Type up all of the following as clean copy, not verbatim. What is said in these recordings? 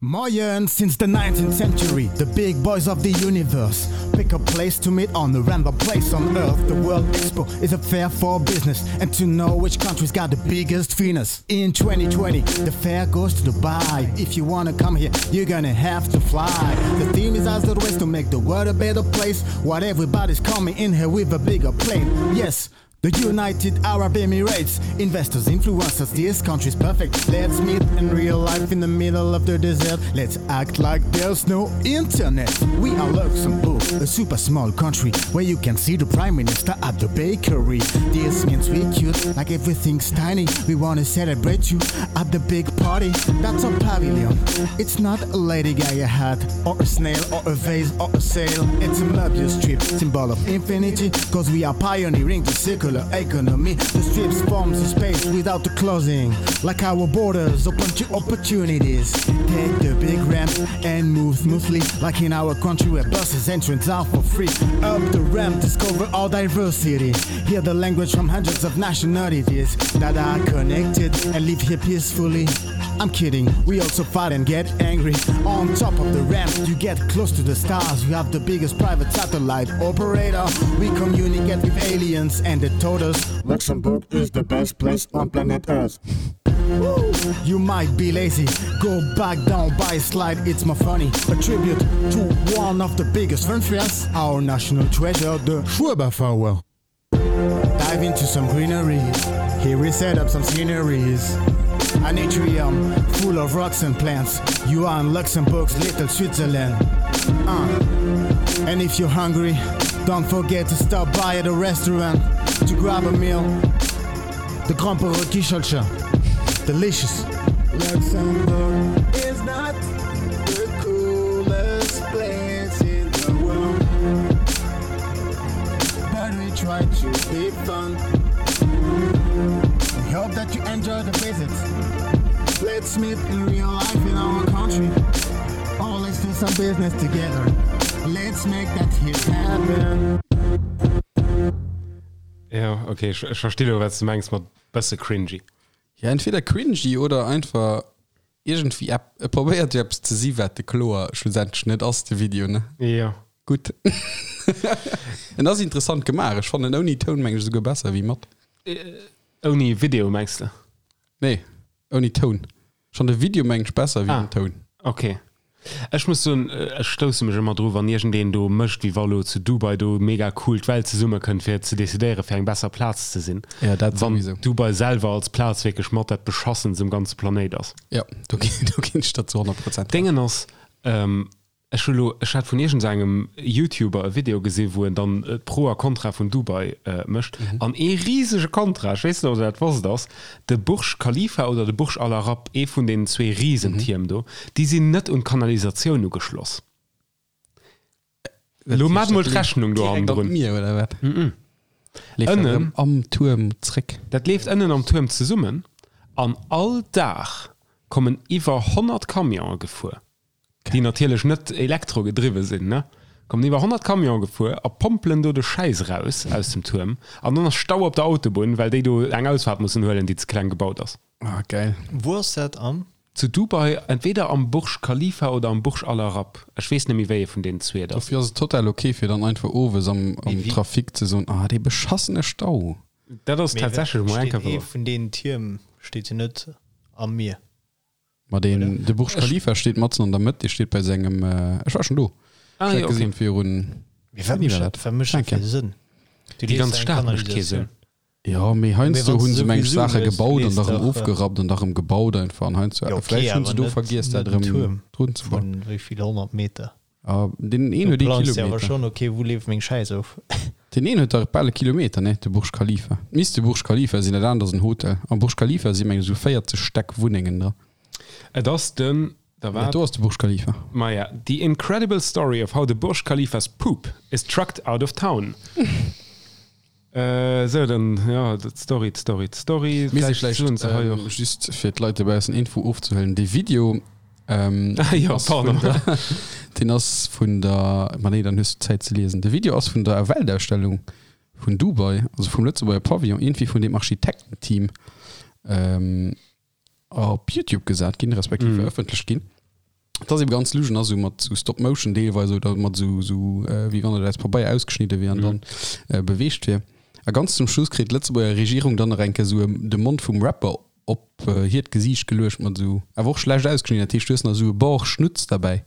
Moien! Since the 19th century, the big boys of the universe pick a place to meet on a random place on earth. The World Expo is a fair for business and to know which country's got the biggest Venus. In 2020, the fair goes to Dubai. If you wanna come here, you're gonna have to fly. The theme is as the ways to make the world a better place. What everybody's coming in here with a bigger plane. Yes, The United Arab Emirates, investors, influencers, this country's perfect. Let's meet in real life in the middle of the desert. Let's act like there's no internet. We are Luxembourg, a super small country where you can see the prime minister at the bakery. This means we cute, like everything's tiny. We wanna celebrate you at the big party. That's a pavilion. It's not a Lady Gaga hat or a snail or a vase or a sail. It's a Möbius strip, symbol of infinity, cause we are pioneering the circular economy. The strips forms a space without the closing, like our borders open to opportunities. Take the big ramp and move smoothly, like in our country where buses entrance are for free. Up the ramp, discover our diversity. Hear the language from hundreds of nationalities that are connected and live here peacefully. I'm kidding, we also fight and get angry. On top of the ramp, you get close to the stars. We have the biggest private satellite operator. We communicate with aliens and they told us Luxembourg is the best place on planet Earth. You might be lazy, go back down by a slide, it's more funny. A tribute to one of the biggest funfairs, our national treasure, the Schueberfouer. Dive into some greenery, here we set up some sceneries. An atrium full of rocks and plants. You are in Luxembourg's little Switzerland. Uh. And if you're hungry, don't forget to stop by at a restaurant to grab a meal. The Gromperekichelcher. Delicious. Luxembourg is not the coolest place in the world. But we try to be fun. We hope that you enjoy the visit. Let's meet in real life in our country. Oh, let's do some business together. Let's make that hit happen. Ja, okay, ech, ech versti lo, wat s du mengs mat bësse cringy. Ja, entweder cringy oder einfach iergendwéi ep, e probéiert jo eppes ze si wat de kloer schlussendlech net ass, de Video, ne? Jo. Gutt. En ass interessant gemaach. Ech fannen ouni Toun meng ech esouguer besser wéi mat. Ouni Video mengs de? Nee, ouni Toun. Ech fannen de Video meng ech besser wéi den Toun. Ok. Ech muss soen, ech stousse mech ëmmer dru wann iergendeen do mécht wéi wa lo zu Dubai do mega cool d'Welt zesummekënnt fir ze decidéiere fir eng besser Plaz ze sinn. Ja, dat Wann souwisou. Dubai selwer als Plaz wierklech mat dat beschassenst um ganze Planéit ass. Ja, do ginn do ginn ech der zu 100 Prozent Recht. Déngen ass, Ech hu lo, ech hat vun iergendsengem Youtuber e Video gesi wou en dann d'Pro a Kontra vun Dubai mécht an ee risege Kontra, ech weess net ob der dat wosst, ass de Burj Khalifa oder de Burj Al Arab, ee vun deenen zwee Risentierm do, déi sinn net un d'Kanalisatioun ugeschloss. Lo maacht mol d'Rechnung do Direkt an hannendrun. d'Mier oder wat? Leeft dat Ënnen. erëm am Tuerm zréck? Dat leeft ënnen am Tuerm zesummen an all Dag kommen iwwer 100 Camionë gefuer. déi natierlech net elektro gedriwwe sinn, ne, kommen iwwer 100 Camionen gefuer a pompelen do de Schäiss eraus aus dem Tuerm an dann ass Stau op der Autobunn, well déi do eng Ausfaart mussen huelen, déi ze kleng gebaut ass. Ah, geil. Wou ass dat am? Zu Dubai, entweder am Burj Khalifa oder am Burj Al Arab, ech weess net méi wéi ee vun deenen zwee et ass. Dofir ass et total ok fir dann einfach owes am Trafic ze soen, ah dee beschassene Stau. Dat ass tatsächlech mol eng Steet Kéier ee wouer. vun deenen Tierm steet jo net am Mier. Ma deen, de Burj Khalifa steet matzen an der Mëtt, dee steet bei sengem, ech war schonn do, Ah, ech jo, hat okay. gesinn virun, Mee wat wéini war mécht dat? wat mécht dat Enke. fir Sënn? Du Déi lees ganz eng Stad mécht kee Kanalisatioun. Sënn. Jo, mee heiansdo Mee wann hu s se du meng ech sowieso Saache hues, gebaut an lees da rëm dach, ofgerappt an da rëm gebaut einfach an heiansdo, Jo, okay, vläicht hunn se awer do net, vergiess dat net en erëm Tuerm drun ze bauen. vun wéi vill 100 Meter. Ah, deen een Du huet ee plangs jo awer Kilometer. schonn, okay, wou leeft meng Schäiss of? Deen een huet dach bal e Kilometer, ne, de Burj Khalifa. Misst de Burj Khalifa sinn, dat anert ass en Hotel. Am Burj Khalifa si meng ech esou 40 Stäck Wunnengen dra. Et ass den, da Dat war do ass de Burj Khalifa. Maja, The incredible story of how the Burj Khalifa's poop is trucked out of town. Esou, dann, jo, d'Story, d'Story, d'Story. Mir si Vläicht vläicht, soen se hei och. just fir d'Leit dobaussen Info ofzehuelen, dee Video ähm, Ah, jo, ass vun pardon. der, deen ass vun der, ma nee, dann hues du Zäit ze liesen. De Video ass vun der Weltausstellung vun Dubai, also vum Lëtzebuerger Pavillon, iergendwéi vun deem Architektenteam ähm, op Youtube gesat ginn, respektiv verëffentlecht ginn. Et ass ebe ganz lusch an ass esou mat sou Stop Motion deelweis oder mat esou sou wéi wann et aus Pabeier ausgeschnidde wier an dann beweegt wier. A ganz zum Schluss kritt d'Lëtzebuerger Regierung dann nach eng Kéier esou de Mond vum Rapper op hiert Gesiicht geluecht mat esou, awer och schlecht ausgeschnidden, dat heescht du hues nach esou e Bord Schnutz derbäi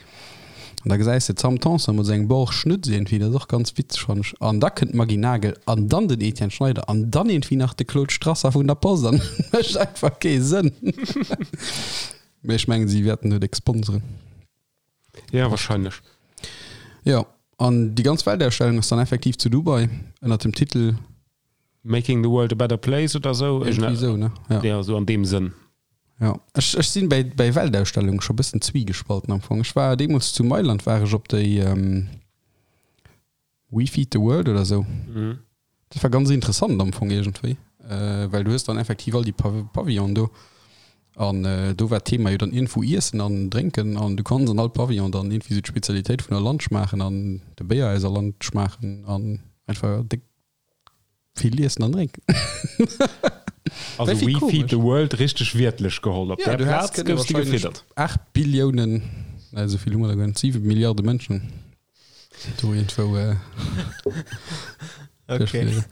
an da gesäis de d'Sam Tanson mat esou engem Bord Schnutz iergendwéi, dat ass och ganz witzeg fannen ech. An da kënnt d'Maggy Nagel an dann den Etienne Schneider an dann iergendwéi nach de Claude Strasser vun der Post an et mécht einfach kee Sënn. Mee ech mengen si wäerten net sponseren. Ja wahrscheinlech. Jo, an déi ganz Weltausstellung ass dann effektiv zu Dubai ënnert dem Titel. Making the world a better place oder sou. Irgendwie sou, ne? Ja. Ja, sou an deem Sënn. Ja, ech, ech sinn bäi, bäi Weltausstellungen scho bëssen zwiegespalten am Fong. Ech war deemools zu Mailand war ech op déi ähm, We Feed the World oder sou. Mhm. Dat war ganz interessant am Fong iergendwéi, äh, well du hues dann effektiv all déi Pav Pavillonen do an äh, do war d'Thema jo dann iergendwou Iessen an Drénken an du konns an all Pavillon dann iergendwéi sou d'Spezialitéit vun der Land schmaachen an de Béier aus der Land schmaachen an einfach déck Vill iessen an drénken. Also We Feed the World richteg wiertlech geholl. Op där Plaz goufs de gefiddert. 8 Billiounen, nee esou vill hu mer der guer net, 7 Milliarde Mënschen do iergendwou duerchfliegen.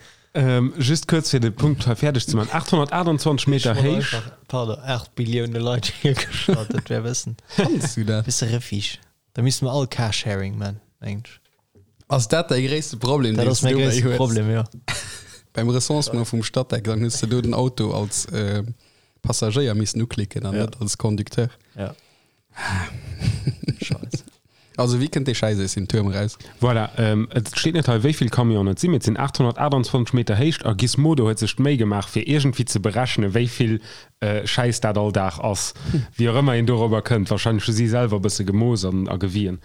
Just kuerz fir de Punkt hei fäerdeg ze maachen, 828 Meter héich. Pardon, 8 Billioune Leit hiergestallt, dat wär e bëssen, Kanns du dat? bësse Refuge. Da misste mer all Carsharing man, mengen ech. Ass dat däi gréisste Problem, Dat deen ass s du mäi dobäi gréisste hues? Problem, jo. Beim Recensement vum Statec, dann hues de do den Auto als Passagéier missen uklicken an Ja. net als Conducteur. Ja. Scheiss. Also wéi kënnt dee Schäiss aus dem Tuerm eraus? Voilà, et steet net hei wéi vill Camionen et sinn, mee et sinn 828 Meter héich a Gizmodo huet sech d'Méi gemaach fir iergendwéi ze berechnen, wéi vill Schäiss dat all Dag ass. Wéi och ëmmer een dorobber kënnt, warscheinlech hu si selwer e bësse gemooss an a gewien.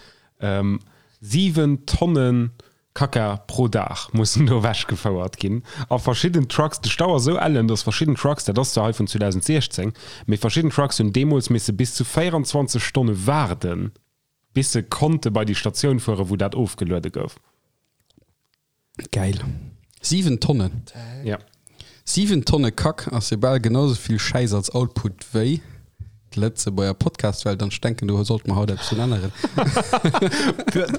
7 Tonne Kacka pro Dag mussen do ewechgefouert ginn a verschidden Trucks. De Stau ass esou ellen, datt verschidden Trucks, dat ass zwar hei vun 2016, mee verschidden Trucks hunn deemools misse bis zu 24 Stonne waarden, bis se konnte bei déi Statioun fueren, wou dat ofgeluede gouf. Gäil. 7 Tonnen. Ja. 7 Tonne Kack ass jo bal genau sou vill Schäiss als Output wéi d'Lëtzebuerger Podcastwelt an ech denken do sollte mer haut eppes drun änneren.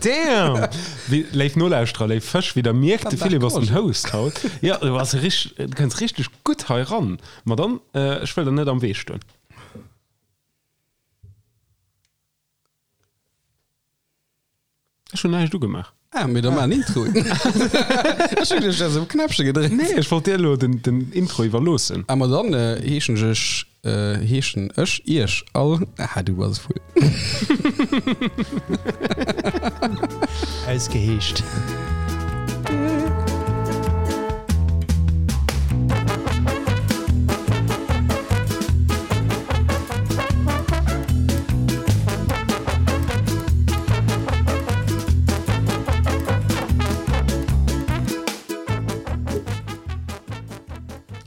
Damn! Wéi, léif Nolauschterer, léif Fësch, wéi der mierkt, de Philippe ass den Host haut. Jo, du bass richt, du kënns richteg gutt hei ran. Ma dann, ech wëll der net am Wee stoen. Ech hunn näischt ugemaach. Ah, mee da maach en Intro. Ech hunn geduecht, du häss op Knäppche gedréckt. Nee, ech wollt dir elo den, den Intro iwwerloossen. Ah, ma dann heeschen ech, heeschen ech iech all, ah, du bass e Vull. Ausgeheescht.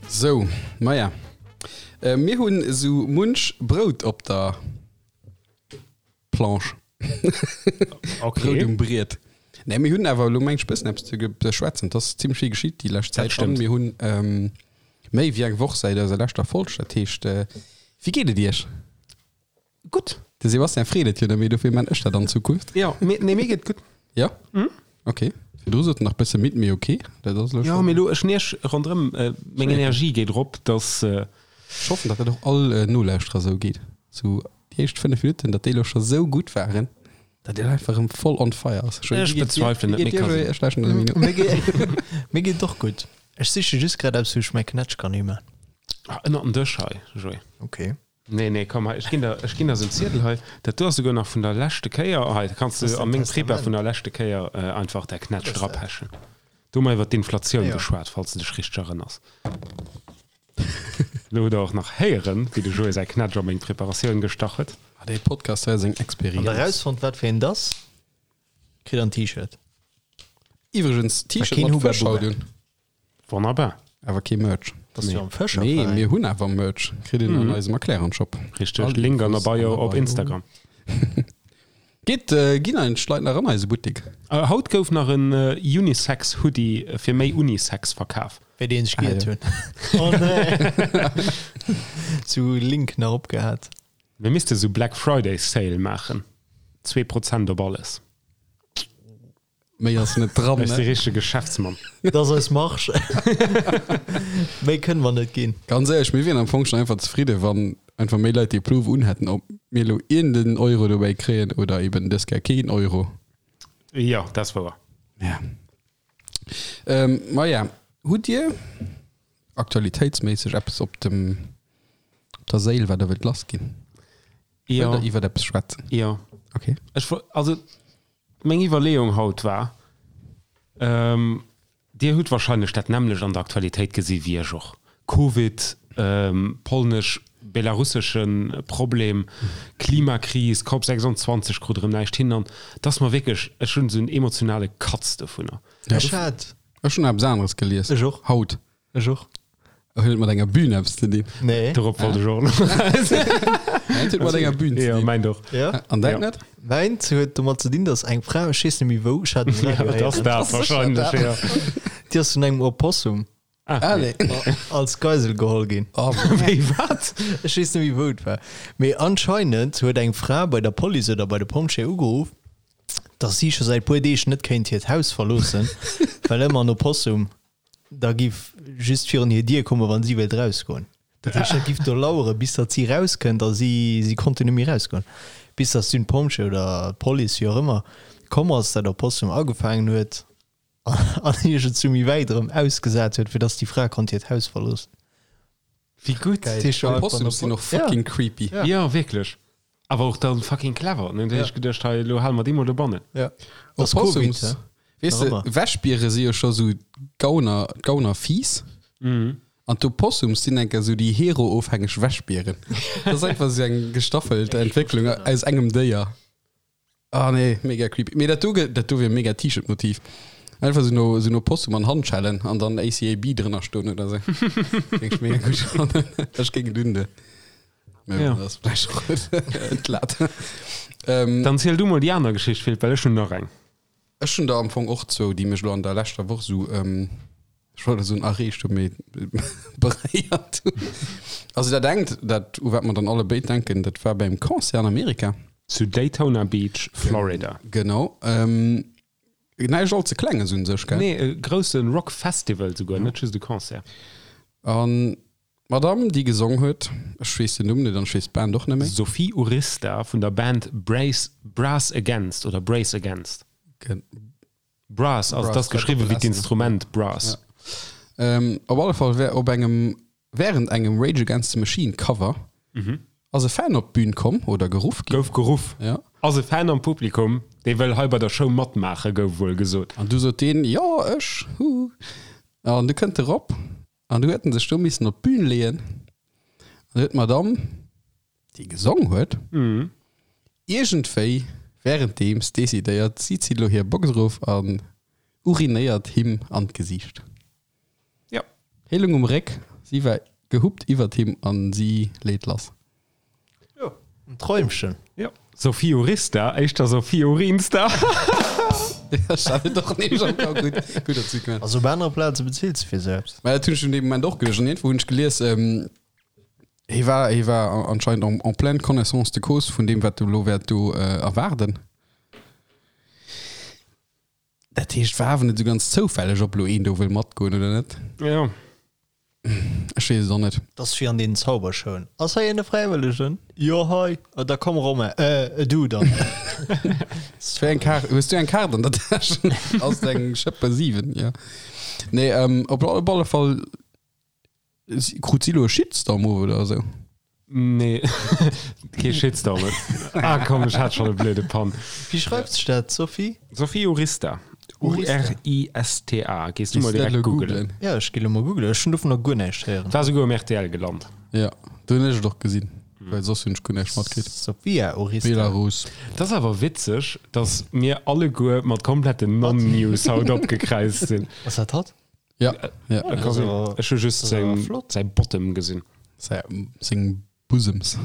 Sou, maja, mir hunn esou munch Brout op der Planche. Okay. Brout um Briet. Nee, mir hunn awer elo meng ech bëssen eppes ze beschwätzen. Et ass zimmlech vill geschitt déi lescht Dat Zäit an stëmmt. mir hunn méi wéi eng Woch säit eiser leschter Folg. Dat heescht, wéi geet et iech? Gutt. De Sebastian freet et jo net méi, dofir man ech dat an Zukunft. Jo, mir, nee, mir geet gutt. Ja? Ok. Virdru sot en nach bësse midd, mee ok, dat ass elo Jo, schonn. mee elo, ech nierch ronderëm, meng Energie geet erop, dass. Ech hoffen, datt dat och all Nolauschterer esou geet. Sou déi éischt 5 Minutten, datt déi elo scho sou gutt waren, datt een einfach erëm voll on fire ass. Joé, Ech wéi geet dir? bezweifelen Wéi et, geet mee dir, ka Joé? sinn. Ech lauschteren der Mino. Mir geet, mir geet och gutt. Ech siche just grad eppes, wou ech mäi Knätsch kann himan. Ah, ënnert den Dësch hei, Joé. Ok. Nee, nee, komm hei, ech ginn der, ech ginn der esou en Ziedel hei. Dat do ass souguer nach vun der leschte Kéier. Hei, da kanns Das du ist a dein meng Prepa Testament. vun der leschte Kéier einfach däi Knätsch Was ist dat? drapechen. Do hu mer iwwer d'Inflatioun Ja. geschwat, falls du dech richteg erënners. Lo hutt der och nach héieren, wéi de Joé säi Knätsch a meng Preparatioun gestach huet. Ah, dee Podcast hei ass eng Wann der Experienz. erausfonnt, wat fir een 't ass, kritt der en T-Shirt. Iwwregens, T-Shirt keen mat Hubba Fësch haut Bubba. un. Wonnerbar. Awer kee Merch. Bass du am Fëscher? Nee, mir hunn awer Merch. Kritt een an eisem Erklärern-Shop. Richteg. All Link an der Infos Bio an der op Bio. Instagram. Geet, ginn eigentlech d'Leit nach an eise Buttik? Haut gouf nach en Unisex-Hoodie fir méi Unisex verkaf. Wéi deen sech Ah, giert jo. hunn. Oh nee. Zu Link nach opgehat. Mir misste sou Black Friday Sale maachen. 2% op alles. Méi ass net dran, Ech si ne? richtege Geschäftsmann. Dat ass eis Marge. Méi kënne mer net ginn. Ganz éierlech, mir wieren am Fong schon einfach zefridde wann einfach méi Leit dee Plouf unhätten, ob mir elo iergenden Euro dobäi kréien oder eben dës Kéier keen Euro. Jo, dat ass wouer. Ja. Ähm, maja, hutt Dir aktualitéitsméisseg eppes op dem, op der Séil, wat Der wëllt lassginn? Jo. Wëllt Der iwwert eppes schwätzen? Jo. Okay. Ech wo-, also meng Iwwerleeung haut war, ähm, Dir hutt wahrscheinlech dat nämmlecht an der Aktualitéit gesi wéi ech och, Covid, ähm, polnesch-belarussesche Problem, Klimakris, Cop 26 krut erëm näischt hin an et ass mer wierklech, ech hunn esou en emotionale Katz dovunner. Ech hat. Ech hunn eppes aneres gelies. Ech och. Haut. Ech och. Huet et mat enger Bühn eppes ze dinn? Nee. Dorop wollt ech och elo eraus. Mäint huet mat enger Bühn ze Jo, dinn. mäint och. Ja. An däint Ja. net? Mäint huet domat ze dinn, datt eng Fra, ech weess net méi wou, ech hat um Ja, Radio dat ass héieren, dat wahrscheinlech, ja. déi ass vun engem Opossum Ah, nee. als Geisel geholl ginn. Oh, Wéi, wat? Ech weess net méi wou et war. Mee anscheinend huet eng Fra bei der Police oder bei de Pompjeeë ugeruff, datt si scho säit puer Deeg net kéint hiert Haus verloossen, well ëmmer en Opossum da giff just virun hir Dier kommen, wann si wéilt rausgoen. Dat heescht, dat giff do lauere bis datt si rauskënnt a si si konnten net méi rausgoen. Bis datt dunn d'Pompjee oder d'Police, wéi och ëmmer, komm ass, dat Opossum agefaangen huet an iergendwou méi wäit erëm ausgesat huet, fir datt déi Fra konnt hiert Haus verloossen. Wéi gutt! Dat heescht jo einfach Opossums sinn och fucking creepy. Ja. Jo, wierklech. Awer och dann fucking clever, ne? Da hu ech geduecht, hei, elo hale mer déi mol dobannen. Ja. Ass Covid, Opossums, hä? weess de, Nach ëmmer. Wäschbiere si jo scho sou Gauner, Gaunerfiiss. An d'Opossums sinn enker sou déi heroofhängeg Wäschbieren. Dat ass einfach sou eng gestaffelt Entwécklung aus engem Déier. Ah nee, mega creepy. Mee dat do, dat do wier e mega T-Shirt-Motiv. Einfach sou no, sou no Opossum an Handschellen an dann ACAB drënner stoen oder sou. Géing ech mega gutt fannen. Ech géing et undoen. Mee Ja. bon, dat ass vläicht och entlaat. Ähm, Dann ziel du mol déi aner Geschicht, Philippe, well ech hunn nach eng. Ech hunn der am Fong och zwou, déi mech elo an der leschter Woch sou, ech wollt elo soen erreegt hunn, mee beréiert hunn. Also dat engt, dat u wat mer dann alle béid denken, dat war beim Concert an Amerika. Zu Daytona Beach, Florida. Genau. Näischt all ze Klenges un sech, gell? Nee, e grousse Rock Festival souguer, net just e Concert. An d'Madame, déi gesong huet, ech weess den Numm net an ech weess d'Band och net méi. Sophie Urista vun der Band Brace, Brass Against oder Brace Against. Brass, also et ass geschriwwen wéi d'Instrument Brass. Op alle Fall wär op engem, während engem Rage Against the Machine Cover ass e Fan op d'Bün komm oder geruff ginn. Gouf geruff. Ja. Ass e Fan am Publikum, dee wëll hei bei der Show matmaachen, gouf wuel gesot. An du sot deen, jo ech, hu. An du kënnt e rop an du huet en sech do missen op d'Bün leeën an du huet d'Madame, déi gesong huet, iergendwéi wärenddeems decidéiert, si zitt elo hir Box erof an urinéiert him an d'Gesiicht. Jo. Hie lung um Réck, si war gehuppt iwwert him an si leet lass. Jo, en Träumchen. Jo. Sophie Urista, éischter Sophie Urinsta. Ech hat et och nämlech am Kapp. Gutt, gutt datt s du et gemaach Also op anere Plaze bezilt se fir sou eppes. Mä dat hunn ech un deem Moment och geduecht. An iergendwou hunn ech gelies, hie war, hie war anscheinend en, en pleine connaissance de cause vun deem, wat do elo wäert do erwaarden. Dat heescht, war awer net esou ganz zoufälleg, ob elo een do wëll matgoen oder net. Jo. Ech weess et och net. Dat ass wéi an deenen Zaubershowen. Ass hei een e Fräiwëllegen? Jo, hei. Ah, da komm Romain. Äh, du dann. Wéi eng Kaart? Hues du eng Kaart an der Täsch? Ass et eng Schëppe 7? Jo. Nee, ähm, op alle Fall krut si elo e Shitstorm of oder esou. Nee, kee Shitstorm. Ah komm, ech hat schonn e blöde Pann. Wéi schreift sech dat, Sophie? Sophie Urista. U-R-I-S-T-A. Gees du mol Gees du dat direkt elo googelen. googlen? Ja, ech gi lo mol googlen. Ech hunn dovunner guer näischt héieren. War souguer um rtl gelant. Ja, do hunn ech et och gesinn, well soss hunn ech guer näischt matkritt. Sophia Urista. Belarus. Dat ass awer witzeg, dass mir alleguer mat kompletten Non-News haut opgekräizt sinn. Ass dat hatt? Ja, ja. Äh, kann sinn. Ech hu just seng, säi Bottom gesinn. Säi, seng Bosoms.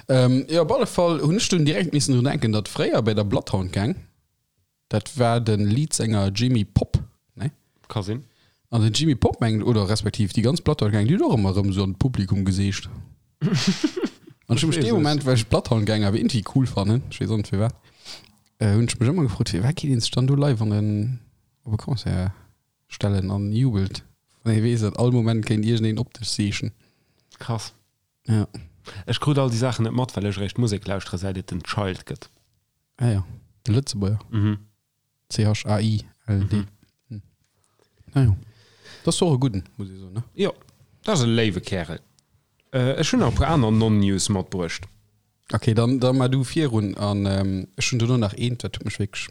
Ähm, jo, op alle Fall hunn ech dunn direkt missen drun denken, datt fréier bei der Bloodhound Gang, dat war de Leadsänger Jimmy Pop, ne? Ka sinn. An den Jimmy Pop mengt, oder respektiv déi ganz Bloodhound Gang, déi huet och ëmmer erëm esou an d'Publikum geseegt. An ech hu mech dee Moment, well ech Bloodhound Gang awer iergendwéi cool fannen, ech weess och net firwat, hunn ech mech ëmmer gefrot, firwat geet een sech dann do live an en, op e Concert stellen an jubelt, wann ee weess, datt all Moment kéint iergendeen op dech seechen. Krass. Ja. Ech krut all déi Saachen net mat, well ech eréischt Musek lauschtere säit et den Child gëtt. Ah jo, de Lëtzebuerger. Mhm. C-H-A-I-L-D. Mhm. Ah jo. Dat ass och e gudden, muss ee soen, ne? Jo, dat ass e léiwe Kärel. Ech hunn nach e puer aner Non-News matbruecht. Ok, dann, da mar du virun an ech hunn dono nach eent, dat huet mech wierklech,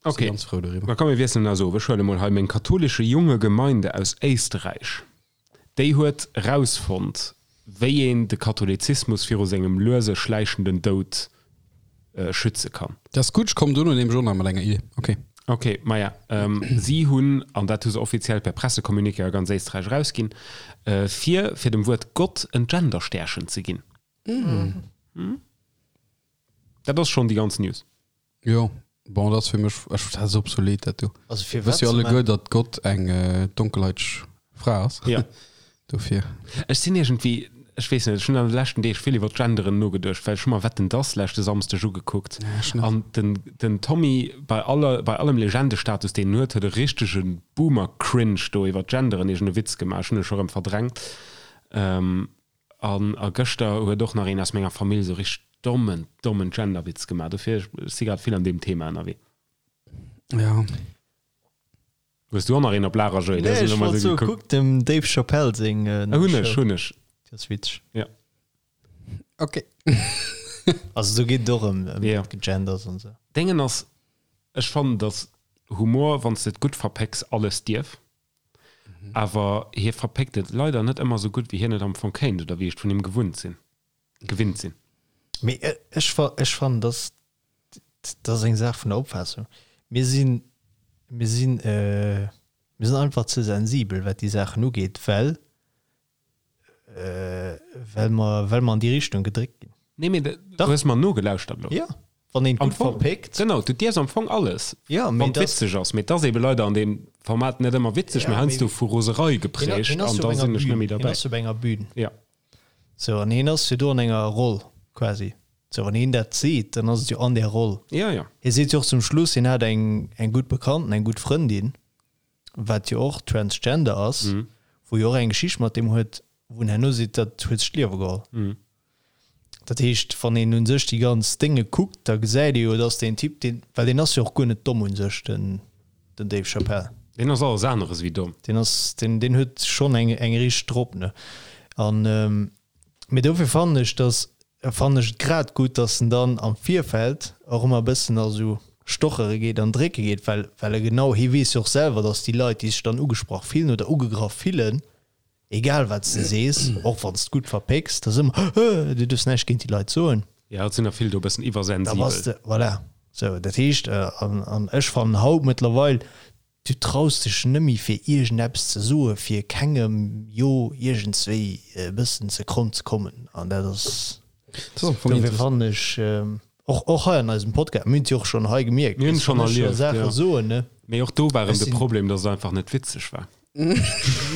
Ok, si ganz frou doriwwer. Da komm mir wiesselen eis of. Ech huele mol hei meng katholische junge Gemeinde aus Éisterräich. Déi huet rausfonnt, wéi een de Katholizismus viru sengem luese schläichenden Doud schütze kann. Dat ass gutt, ech kommen dono nämlech och nach mat enger Idee. Ok. Ok, maja, si hunn, an dat hu se offiziell per Pressecommuniqué a ganz Éisträich erausginn, vir, fir dem Wuert Gott en Genderstärchen ze ginn. Dat ass schonn déi ganz News. Jo, bon, dat ass fir mech, ech, dat ass obsolet, dat do. Also fir Wëss wat jo ze alleguer, man? datt Gott eng donkelhaiteg Fra ass. Ja. Dofir. Ech sinn iergendwéi, ech weess net, ech hunn an de leschten Deeg vill iwwer d'Genderen nogeduecht, well ech hu mer Wetten, dass leschte Samsdeg ugekuckt. Ja, ech net. An den, den Tommy, bei aller, bei allem Legendestatus, deen en huet, huet e richtege Boomer-Cringe do iwwer d'Genderen iergend e Witz gemaach. Ech hunn e scho rëm verdrängt. An a gëschter huet och nach een aus menger Famill esou richteg dommen, dommen Genderwitz gemaach. Dofir, ech si grad vill an deem Thema ënnerwee. Ja. Hues du och nach een op Lager, Joé? Nee, ech wollt soen, kuck dem Dave Chappelle seng nei Hunn ech, Show. hunn ech. Déi ass witzeg. Ja. Ok. Also do geet et och ëm ëm Ja. Genders an esou. Déngen ass, ech fannen, datt Humor, wann s de et gutt verpécks, alles dierf. Awer hie verpéckt et leider net ëmmer esou gutt, wéi hien et am Fong kéint oder wéi ech et vun him gewunnt sinn, gewinnt sinn. Mee ech, ech fannen, dass, dat ass eng Saach vun der Opfaassung. Mir sinn, mir sinn, mir sinn einfach ze sensibel, wat déi Saachen ugeet, well Well mer, well mer an déi Richtung gedréckt ginn. Nee, mee du hues mer nogelauschtert elo. Jo, wann een et gutt verpéckt. Genau, du dierfs am Fong alles, Jo, mee wann et witzeg ass. Mee et ass eebe leider an deem Format net ëmmer witzeg, mee heiansdo vu Roserei geprägt an da sinn ech net méi derbäi. Hien ass jo op enger Bühn. Jo. Sou, an hien ass jo do an enger Roll quasi. Sou, wann hien dat seet, dann ass et jo an där Roll. Jo, jo. Hie seet jo och zum Schluss, hien hat eng, eng gutt Bekannten, eng gutt Frëndin, wat jo och transgender ass, wou jo och eng Geschicht mat deem huet, wou en herno seet, dat huet sech d'Liewe geholl. Dat heescht, wann een u sech déi ganz Dénge kuckt, da gesäit ee jo, dass deen Typ, deen, well deen ass jo och guer net domm u sech, den, den Dave Chappelle. Deen ass alles aneres wéi domm. Deen ass, deen, deen huet schonn eng, eng richteg drop, ne? An, mee dofir fannen ech, dass fannen ech et grad gutt, dass en dann am Virfeld och ëmmer e bëssen a sou stochere geet an drécke geet, well well e genau, hie weess jo och selwer, dass déi Leit, déi sech dann ugesprach fillen oder ugegraff fillen, egal wat s de sees, och wann s de gutt verpécks, da ass ëmmer, Hö, du duerfs näischt géint déi Leit soen. Jo, et sinn der vill do e bëssen Da bass iwwersensibel. de, voilà. Sou, dat heescht, an an ech fannen haut mëttlerweil, Du traus dech nëmmi fir iergendeppes ze soe fir kengem jo iergendswéi e bëssen ze kromm ze kommen an dat ass dofir fannen ech och och hei an eisem Podcast, mir hunn et jo och schonn hei gemierkt, Mir hunn et schonn wann ech erlieft, Saache jo. soen, ne. Mee och do war erëm Ech de sinn. Problem, dass et einfach net witzeg war.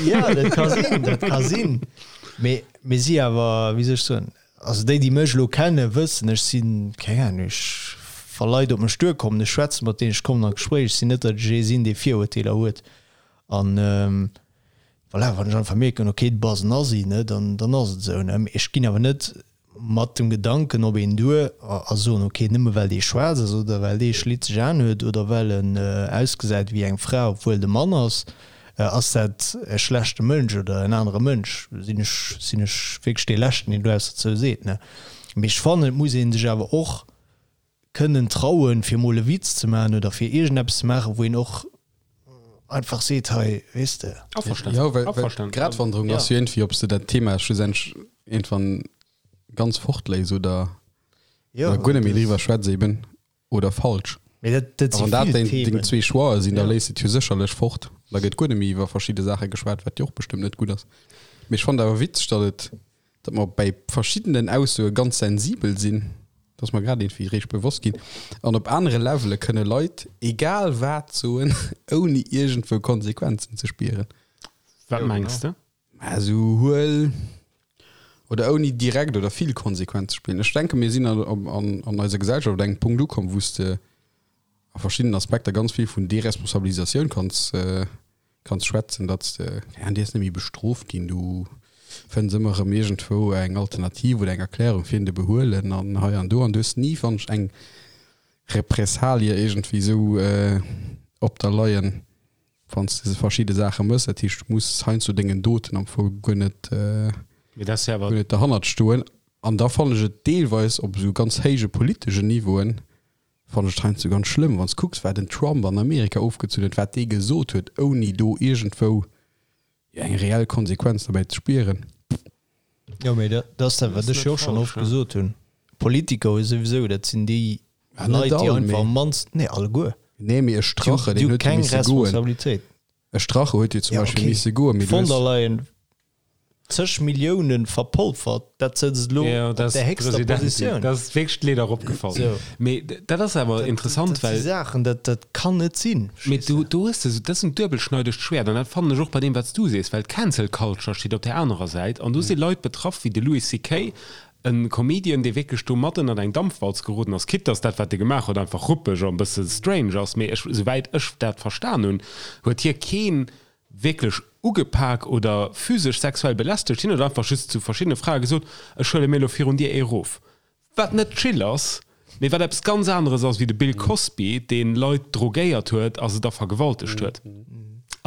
Jo, dat ka sinn, dat ka sinn, mee mir si awer, wéi soll ech soen, Also déi, déi mech elo kennen, wëssen, ech sinn, keng Ahnung, ech, wa Leit op mech duerkommen, ech schwätze mat deenen, ech kommen an d'Gespréich, ech sinn net, datt ech ee sinn, dee Virurteeler huet. An voilà, wann ech einfach mierken, okay, du bass en Assi, ne, dann, dann ass et esou, ne. Mee ech ginn awer net mat dem Gedanken op een duer a, a soen, okay, nëmme well dee schwaarz ass oder well dee schlitzeg Aen huet oder well en ausgesäit wéi eng Fra, obwuel et e Mann ass, Ass dat e schlechte Mënsch oder en anere Mënsch? Sinn ech, sinn ech wierklech dee Leschten, deen do eppes dozou seet, ne? Mee ech fannen, et muss ee sech awer och kënnen trauen, fir emol e Witz ze maachen oder fir iergendeppes ze maachen, wou een och einfach seet, hei, weess de. Averstanen. Jo, well, well Averstanen. d'Gratwanderung Ja. ass jo iergendwéi, ob s de dat Thema schlussendlech iergendwann ganz fortléis oder, Jo, oder guer net méi dat- driwwer schwätz eben. oder falsch. Mee dat, dat A si wann dat vill deng, deng Themen. zwee Choixë sinn, da Ja. léiss de et jo sécherlech fort. Da gëtt guer net méi iwwer verschidde Saache geschwat, wat jo och bestëmmt net gutt ass. Mee ech fannen awer witzeg, datt et, datt mer bei verschiddenen Aussoe ganz sensibel sinn, dat ass mer grad iergendwéi eréischt bewosst ginn. An op anere Levele kënne Leit egal wat soen, ouni iergendwou Konsequenzen ze spieren. Wat mengs de? Mä esou huel. Oder ouni direkt oder vill Konsequenz ze spillen. Ech denke mir sinn an, an, an eiser Gesellschaft op engem Punkt ukomm, wou s de a verschiddenen Aspekter ganz vill vun Deresponsabilisatioun kanns, kanns schwätzen, datt s de, keng Ahnung, dierfs net méi bestrooft ginn, du fënns ëmmer erëm iergendwou eng Alternativ oder eng Erklärung fir en de Behuelen an hei an do an du hues ni, fannen ech, eng Repressalie iergendwéi esou op der leien, wann s de verschidde Saache mëss. Dat heescht, du muss heiansdo dengen Doten am Fong guer net, Mee dat ass jo awer. guer net derhannert stoen. An da fannen ech et deelweis op esou ganz héije politeschen Niveauen, fannen ech et heiansdo ganz schlëmm, wann s kucks, wat en Trump an Amerika ofgezunn huet, wat dee gesot huet, ouni do iergendwou jo eng reell Konsequenz derbäi ze spieren. Jo, mee dat ass dat, wat ech jo och schonn oft gesot hunn. Politiker hu souwisou, dat sinn déi Leit, déi einfach am mannsten, nee, alleguer. Nee, mee e Strache, deen huet jo misse goen. Responsabilitéit. E Strache huet jo zum Beispill misse goen, mee du hues. D'von der Leyen zeg Milliounen verpolfert, dat sëtzt elo op der héchster Positioun. Dat ass wierklech d'Leed eropgefall. Mee dat ass awer interessant, well. Dat si Saachen, dat, dat kann net sinn. Mee do, do hues de, dat ass en duebelschneidegt Schwäert an dat fannen ech och bei deem, wat s du sees, well d'Cancel Culture steet op där anerer Säit an do si Leit betraff wéi de Louis CK. E Comedian, dee wierklech do mat ënnert eng Dampwalz geroden ass, quitte dass dat, wat e gemaach huet, einfach ruppeg an e bësse strange ass, mee ech, souwäit ech dat verstan hunn, huet hie keen wierklech ugepak oder physesch sexuell belästegt, hien huet einfach just zu verschiddene Frae gesot, ech huele mir elo virun dir ee rof. Wat net chill ass, mee wat eppes ganz aneres ass wéi de Bill Cosby, dee Leit drogéiert huet a se da vergewaltegt huet.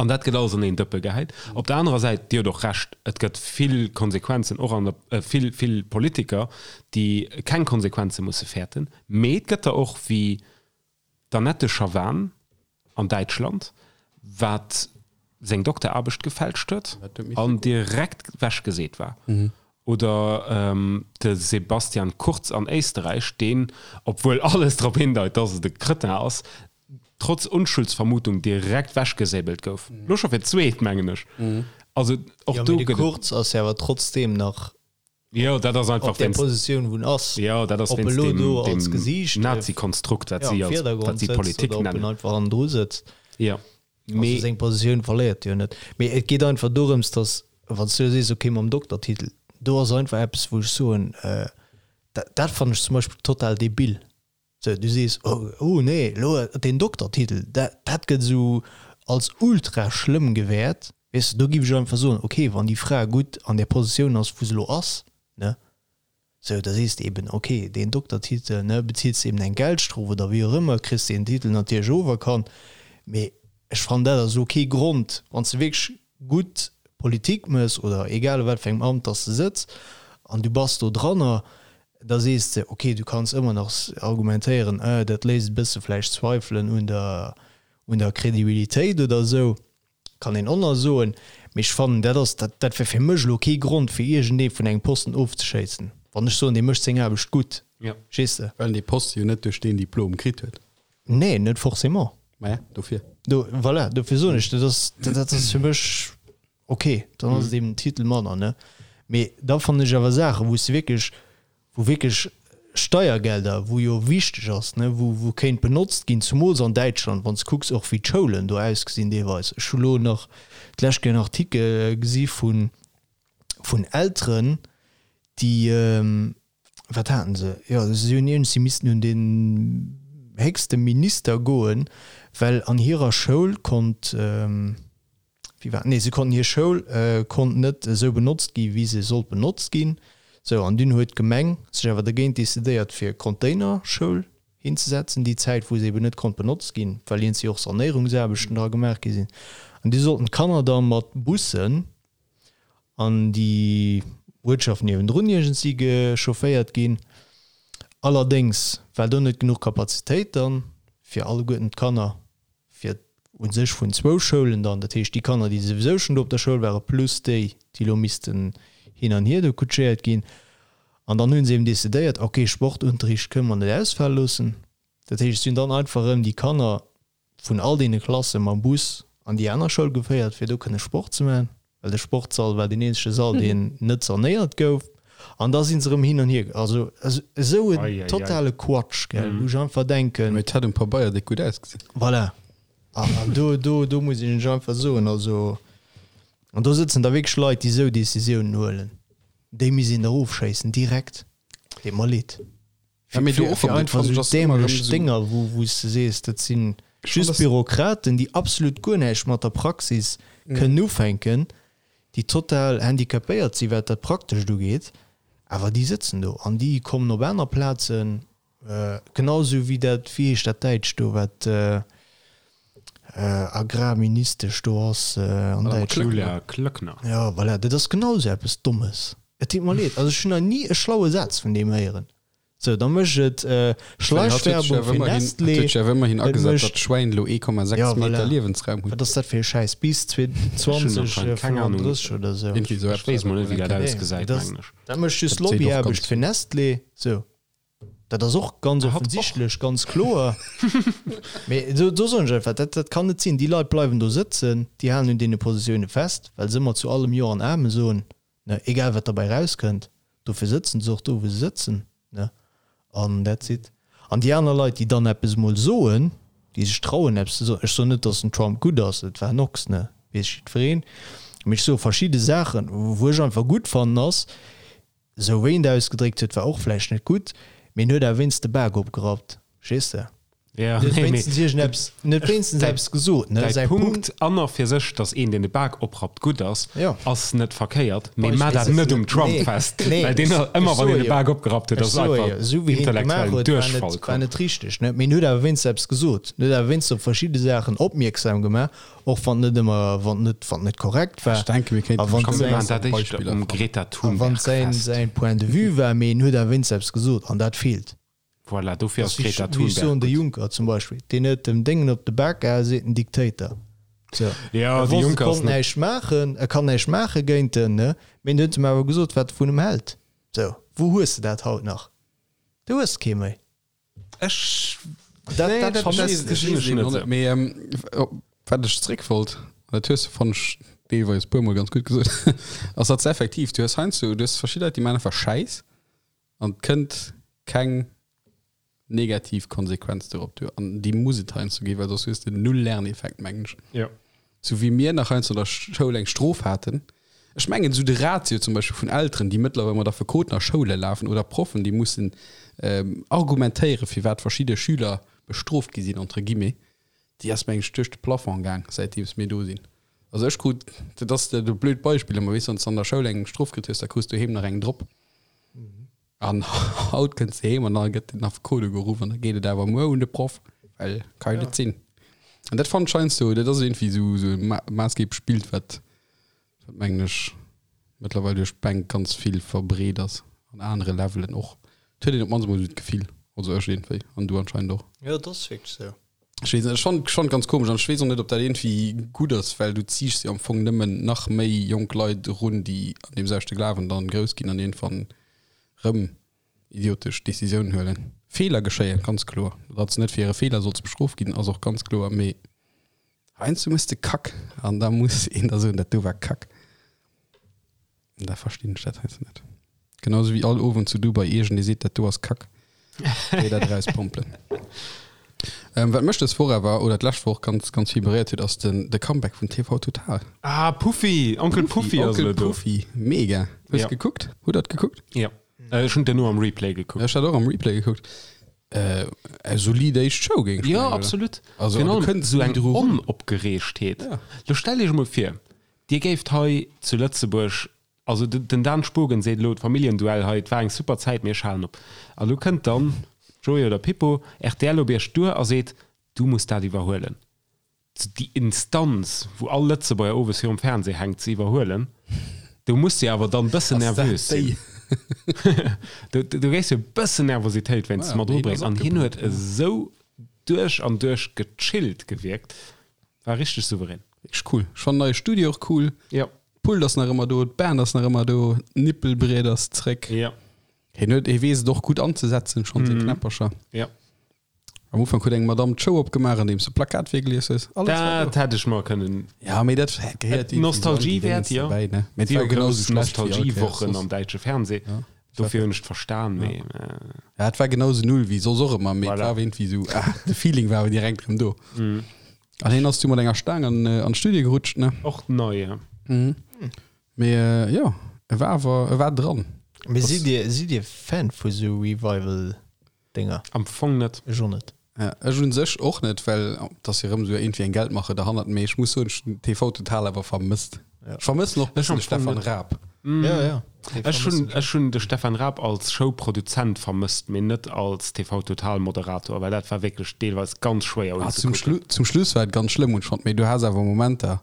An dat gëtt alles an een Dëppe gehäit. Op der anerer Säit, Dir hutt och Recht, et gëtt vill Konsequenzen och an der, vill, vill Politiker, déi keng Konsequenze musse fäerten, mee et gëtt der och wéi D'Annette Schavan an Däitschland, wat seng Dokteraarbecht gefälscht huet an direkt wechgeseet war. Oder de Sebastian Kurz an Éisterräich, deen, obwuel alles drop hindeit, dass et e Cretin ass, trotz Unschuldsvermutung direkt wechgesäbelt gouf. Lo scho fir d'zweet, mengen ech. Also och do gëtt et. Jo, mee de Kurz ass jo awer trotzdeem nach Jo, dat ass einfach op där Positioun wou en ass. Jo, dat ass wéinst deem, do als Gesiicht Nazi-Konstrukt, wat si als, wat si Politik nennen. Ob en einfach hannendru sëtzt. Jo, mee. Also seng Positioun verléiert jo net. Mee et geet einfach dorëms, datt, wann s du sees, okay, mam Doktertitel, do ass einfach eppes, wou ech soen, dat, dat fannen ech zum Beispill total debil. Sou, du sees, oh, oh nee, elo deen Doktertitel, dat, dat gëtt esou als ultra schlëmm gewäert. Weess de, do giff ech einfach soen, okay, wann déi Fra gutt an där Positioun ass, wou se elo ass, ne, sou, da sees de eben, okay, deen Doktertitel, ne, bezils de eben eng Geldstrof oder wéi och ëmmer, kriss deen Titel natierlech oferkannt, mee ech fannen, dat ass elo kee Grond, wann s de wierklech gutt Politik mëss oder egal a wat fir engem Amt dass de sëtz an du bass do dranner, da sees de, ok, du kanns ëmmer nach argumentéieren, euh, dat léisst e bësse vläicht Zweifelen un der, un der Kredibilitéit oder esou, kann een och nach soen. Mee ech fannen, dat ass, dat, dat wär fir mech elo kee Grond, fir iergendee vun engem Posten ofzeschéissen, wann ech soen, dee mécht seng Aarbecht gutt, verstees de? Well en dee Poste jo net duerch deen Diplom kritt huet. Nee, net forcément. Maja, dofir. Do, voilà, dofir soen ech, dat ass, dat ass fir mech ok, dann ass et eben en Titel manner, ne? Mee da fannen ech awer Saachen, wou s de wierklech, wou wierklech Steiergelder, wou jo wichteg ass, ne, wou, wou kéint benotzt ginn, zumools an Däitschland, wann s de kucks och wéi d'Schoulen do ausgesinn deelweis. Ech hu lo nach d'lescht Kéier en Artikel gesi vun, vun Elteren, déi, wat haten se, jo si hunn iergend, si missten un den héchste Minister goen, well an hirer Schoul konnt, wéi war, nee se konnten, hir Schoul konnt net esou benotzt gi wéi se sollt benotzt ginn. Sou, an dunn huet d'Gemeng sech awer dergéint decidéiert fir Containerschoul hinzesetzen, déi Zäit wou se eben net konnt benotzt ginn, well iergendwéi och Sanéierungsaarbechten dra gemaach gi sinn. An du sollten d'Kanner da mat Bussen an déi Uertschaft niewendrun iergendsi gechaufféiert ginn. Allerdéngs war do net genuch Kapazitéit dann fir alleguerten d'Kanner, fir u sech vun zwou Schoulen dann, dat heescht déi Kanner, déi souwisou schonn do op der Schoul waren, plus déi, déi elo missten hin an hier do kutschéiert ginn. An dann hu se eben decidéiert, ok, Sportunterricht kënne mer net ausfale loossen. Dat heescht, et sinn dann einfach erëm déi Kanner vun all deene Klasse mam Bus an déi aner Schoul geféiert, fir do kënne Sport ze maachen, well de Sportssall war deen eenzege Sall, deen net sanéiert gouf. An da si se erëm hin an hier. Also esou en totale Quatsch, gell, wou ech einfach denken. Mee et hätt um Pabeier déck gutt ausgesinn. Voilà. An do, do, do muss ech einfach soen, also, an do sëtzen da wierklech Leit, déi esou Decisiounen huelen. Déi misst een der ofschéissen direkt. Deet mer leed. Ja, mee do Fir, och fir erëm, dat einfach fannen ech esou ass ëmmer erëm dämlech esou. Dénger, wou, wou s de sees, dat si Ech fannen just das. Bürokraten, déi absolut guer näischt mat der Praxis kënnen ufänken, déi total handicapéiert si wat dat Praktescht ugeet, awer déi sëtzen do an déi kommen op aner Plazen, genau esou wéi dat, wéi heescht dat Däitscht do, wat Agrarministesch do ass an Madame Däitschland. Klöckner. Julia Klöckner. Jo, voilà, dat ass genau esou eppes Dommes. Et deet mer leed, also ech hunn nach ni e schlaue Saz vun deem héieren. Sou, da mécht et Schleichwerbung fir Nestlé. Huet sech awer ëmmerhin Et agesat, mécht datt d'Schwäin elo 1,6 Ja, Meter voilà. Liewensraum hunn. Wat ass dat fir e Schäiss? Bis Ech hunn anscheinend keng Ahnung. 2035 oder sou? Irgendwie sou Ech eppes weess war mol dat net, wéi mol dat eng Kéier. Nee, ausgesäit, dat ass, mengen ech. dat mécht just Dat seet och Lobbyaarbecht ganz fir Nestlé. Sou, dat ass och ganz Hat och. offensichtlech, ganz kloer. Mee do, do soen ech einfach, dat, dat kann net sinn. Déi Leit bleiwen do sëtzen, déi halen un deene Positioune fest, well se ëmmer zu allem Jo an Amen soen. Ne, egal wat derbäi rauskënnt, dofir sëtzen se och do wou se sëtzen, ne, an that's it. An déi aner Leit, déi dann eppes emol soen, déi sech trauen eppes ze soen, ech soen net, datt den Trump gutt ass, et war en Ochs, ne, weess jiddwereen, mee ech soe verschidde Saachen, wou ech einfach gutt fannen ass, esou wéi en et ausgedréckt huet, war och vläicht net gutt, mee en huet awer wéinst de Bak opgerappt, verstees de? Ja, Net nee, mee wéinstens iergendeppes, net wéinstens däi- eppes gesot, ne? Däi Säi Punkt Punkt, an a fir sech, datt een, deen de Bak oprappt, gutt ass, Ja. ass net verkéiert, mee Beispill- mar dat net um Trump Nee, fest, nee, well deen ech- ëmmer ech wann een soe de jo. Bak opgerappt huet, Ech ass soe jo, einfach esou wéi hien et gemaach intellektuellen huet, war net, Duerchfall war komm. net richteg, ne? Mee en huet awer wéinstens eppes gesot. En huet awer wéinstens op verschidde Saachen opmierksam gemaach, och wann net ëmmer, wann net, wann net korrekt war. Ech denke, mir kéinten A wann Komm, mir säin- maachen dat éischter Beispiller um fannen. Greta A wann Thunberg säin, fest. säin Point de vue war, mee en huet awer wéinstens eppes gesot, an dat feelt. Voilà, dofir ass Wéi Greta ech soen, Thunberg de gutt. Juncker zum Beispill, deen huet dem Déngen op de Bak gehaen, seet en Diktator. So. Ja, E de wosst, e Juncker ass konnt net. näischt maachen, e kann näischt maache géint en, ne? Mee en huet em awer gesot, wat e vun em hält. So, wou hues de dat haut nach? Du hues kee méi. Ech. Dat, Nee, dat dat vermëssen dat ech. gesinn ech net esou. Mee ähm, wat ech zréck wollt, dat hues de fannen ech deelweis e puermol ganz gutt gesot, ass datt s effektiv, du hues heiansdo, du hues verschidde Leit, déi maachen einfach Schäiss an et kënnt keng negativ Konsequenz dorop duer. An déi muss et heiansdo ginn, well soss hues de null Lerneffekt, mengen ech. Ja. Sou wéi mir nach heiansdo an der Schoul eng Strof haten. Ech mengen, esou de Ratio zum Beispill vun Elteren, déi mëttlerweil mat Affekoten a Schoule lafen oder Proffen, déi mussen argumentéieren, firwat verschidde Schüler bestrooft gi sinn, entre guillemets, déi ass, mengen ech, duerch de Plafond gaang, säitdeems mir do sinn. Also ech krut, dat ass e blöd Beispill, mä weess, wann s de an der Schoul eng Strof kritt hues, da krus du doheem nach eng drop. An haut kënns de heem an da gëtt den Affekot ugeruff an da geet et awer muer un de Proff, well ka jo net sinn. An dat fannen ech heiansdo, dat ass iergendwéi esou esou e maassgeeblech Bild, wat, wat mengen ech, mëttlerweil duerch d'Bänk ganz vill verbreet ass, an anere Levelen och. Et huet een op d'mannst emol esou d'Gefill, also ech iergendwéi, an du anscheinend och. Jo, dat ass wierklech esou. Ech weess net, ech fannen schonn ganz komesch an ech weess och net, ob dat iergendwéi gutt ass, well du ziichs jo am Fong nëmmen nach méi jonk Leit erun, déi an deem selwechte Glawen dann grouss ginn an iergendwann rëm idiotesch Decisiounen huelen. Feeler geschéien, ganz kloer. Datt s de net fir hire Feeler solls bestrooft ginn, ass och ganz kloer, mee heiansdo méchs de Kack an da muss een der soen, dat do war Kack. An da verstinn ech dat heiansdo net. Genauso wéi all Owend zu Dubai iergendee seet, dat do ass Kack. Déi dat erauspompelen. Ähm, wat mech dës Woch awer, oder d'lescht Woch ganz, ganz vill beréiert huet, ass den, de Comeback vun TV Total. Ah, Puffy! Onkel Puffy ass Onkel elo do. Puffy, mega. Hues Ja. gekuckt? Hutt der gekuckt? Ja. Äh, ech hunn duerno am Replay gekuckt. Ech hat och am Replay gekuckt. Äh, eng solid éischt Show, géing ech Ja, mengen, oder? absolut. Also, Virun du allem kënns esou ni eng dru run. Onopgereegtheet. Ja. Lo stell iech emol vir, Dir géift hei zu Lëtzebuerg, also den Dan Spogen seet elo, d'Familljenduell hei, et war eng super Zäit, mee ech halen op. A lo kënnt dann Joé oder Pippo, rtl op iech duer a seet, du muss dat iwwerhuelen. Déi Instanz, wou all Lëtzebuerger owes virum Fernseh hänkt, ze iwwerhuelen, do muss de awer dann bëssen nervös sinn. Do géifs jo e bëssen Nervositéit wéinstens mat erubréngen. An hien huet esou duerch an duerch gechillt gewierkt, war richteg souverän. Wierklech cool. Ech fannen neie Studio och cool. Ja. D'Pult ass nach ëmmer do, d'Band ass nach ëmmer do, d'Nippelbriet ass zréck. Ja. Hien huet, hie weess et och gutt anzesetzen, schonn seng Knäppercher. Ja. Am Ufank huet eng Madame d'Show opgemaach, andeems se Plakat virgelies huet. Alles war Dat do. hätt ech mer kënnen. Ja, mee dat gehéiert irgendwie so an déi Nostalgiewäert, Dingens jo. derbäi, ne? Mee et Si war hu genauso grouss schlecht wéi all Kéiers Nostalgiewochen soss. am däitsche Fernseh. Ja. Dofir hunn ech et verstan, mee. Ja, et war genauso null wéi soss och ëmmer, mee et Voilà. war irgendwie sou, ah, de Feeling war awer direkt erëm do. An hien ass du mat enger Staang an, an d'Studio gerutscht, ne? Och nei, ja. Mee jo. E war awer, e war dran. Mee sidd Dir, sidd Dir Fan vu sou Revival-Dénger? Am Fong net. Ech och net. Ja, ech un sech och net, well et ass jo rëm esou iergendwéi eng Geldmache derhannert. Mee ech muss soen, ech hunn TV Total awer vermësst. Ja. Ech vermëssen och e Ech bëssen am de Fong Stefan net. Raab. Ja, ja. Dee Ech hunn, vermëssen ech ech hunn de Stefan Raab als Showproduzent vermësst, mee net als TV Total Moderator, well dat war wierklech deelweis ganz schwéier Ah, zum unzekucken. Schlu zum Schluss war et ganz schlëmm, hunn ech fonnt. Mee du has awer Momenter,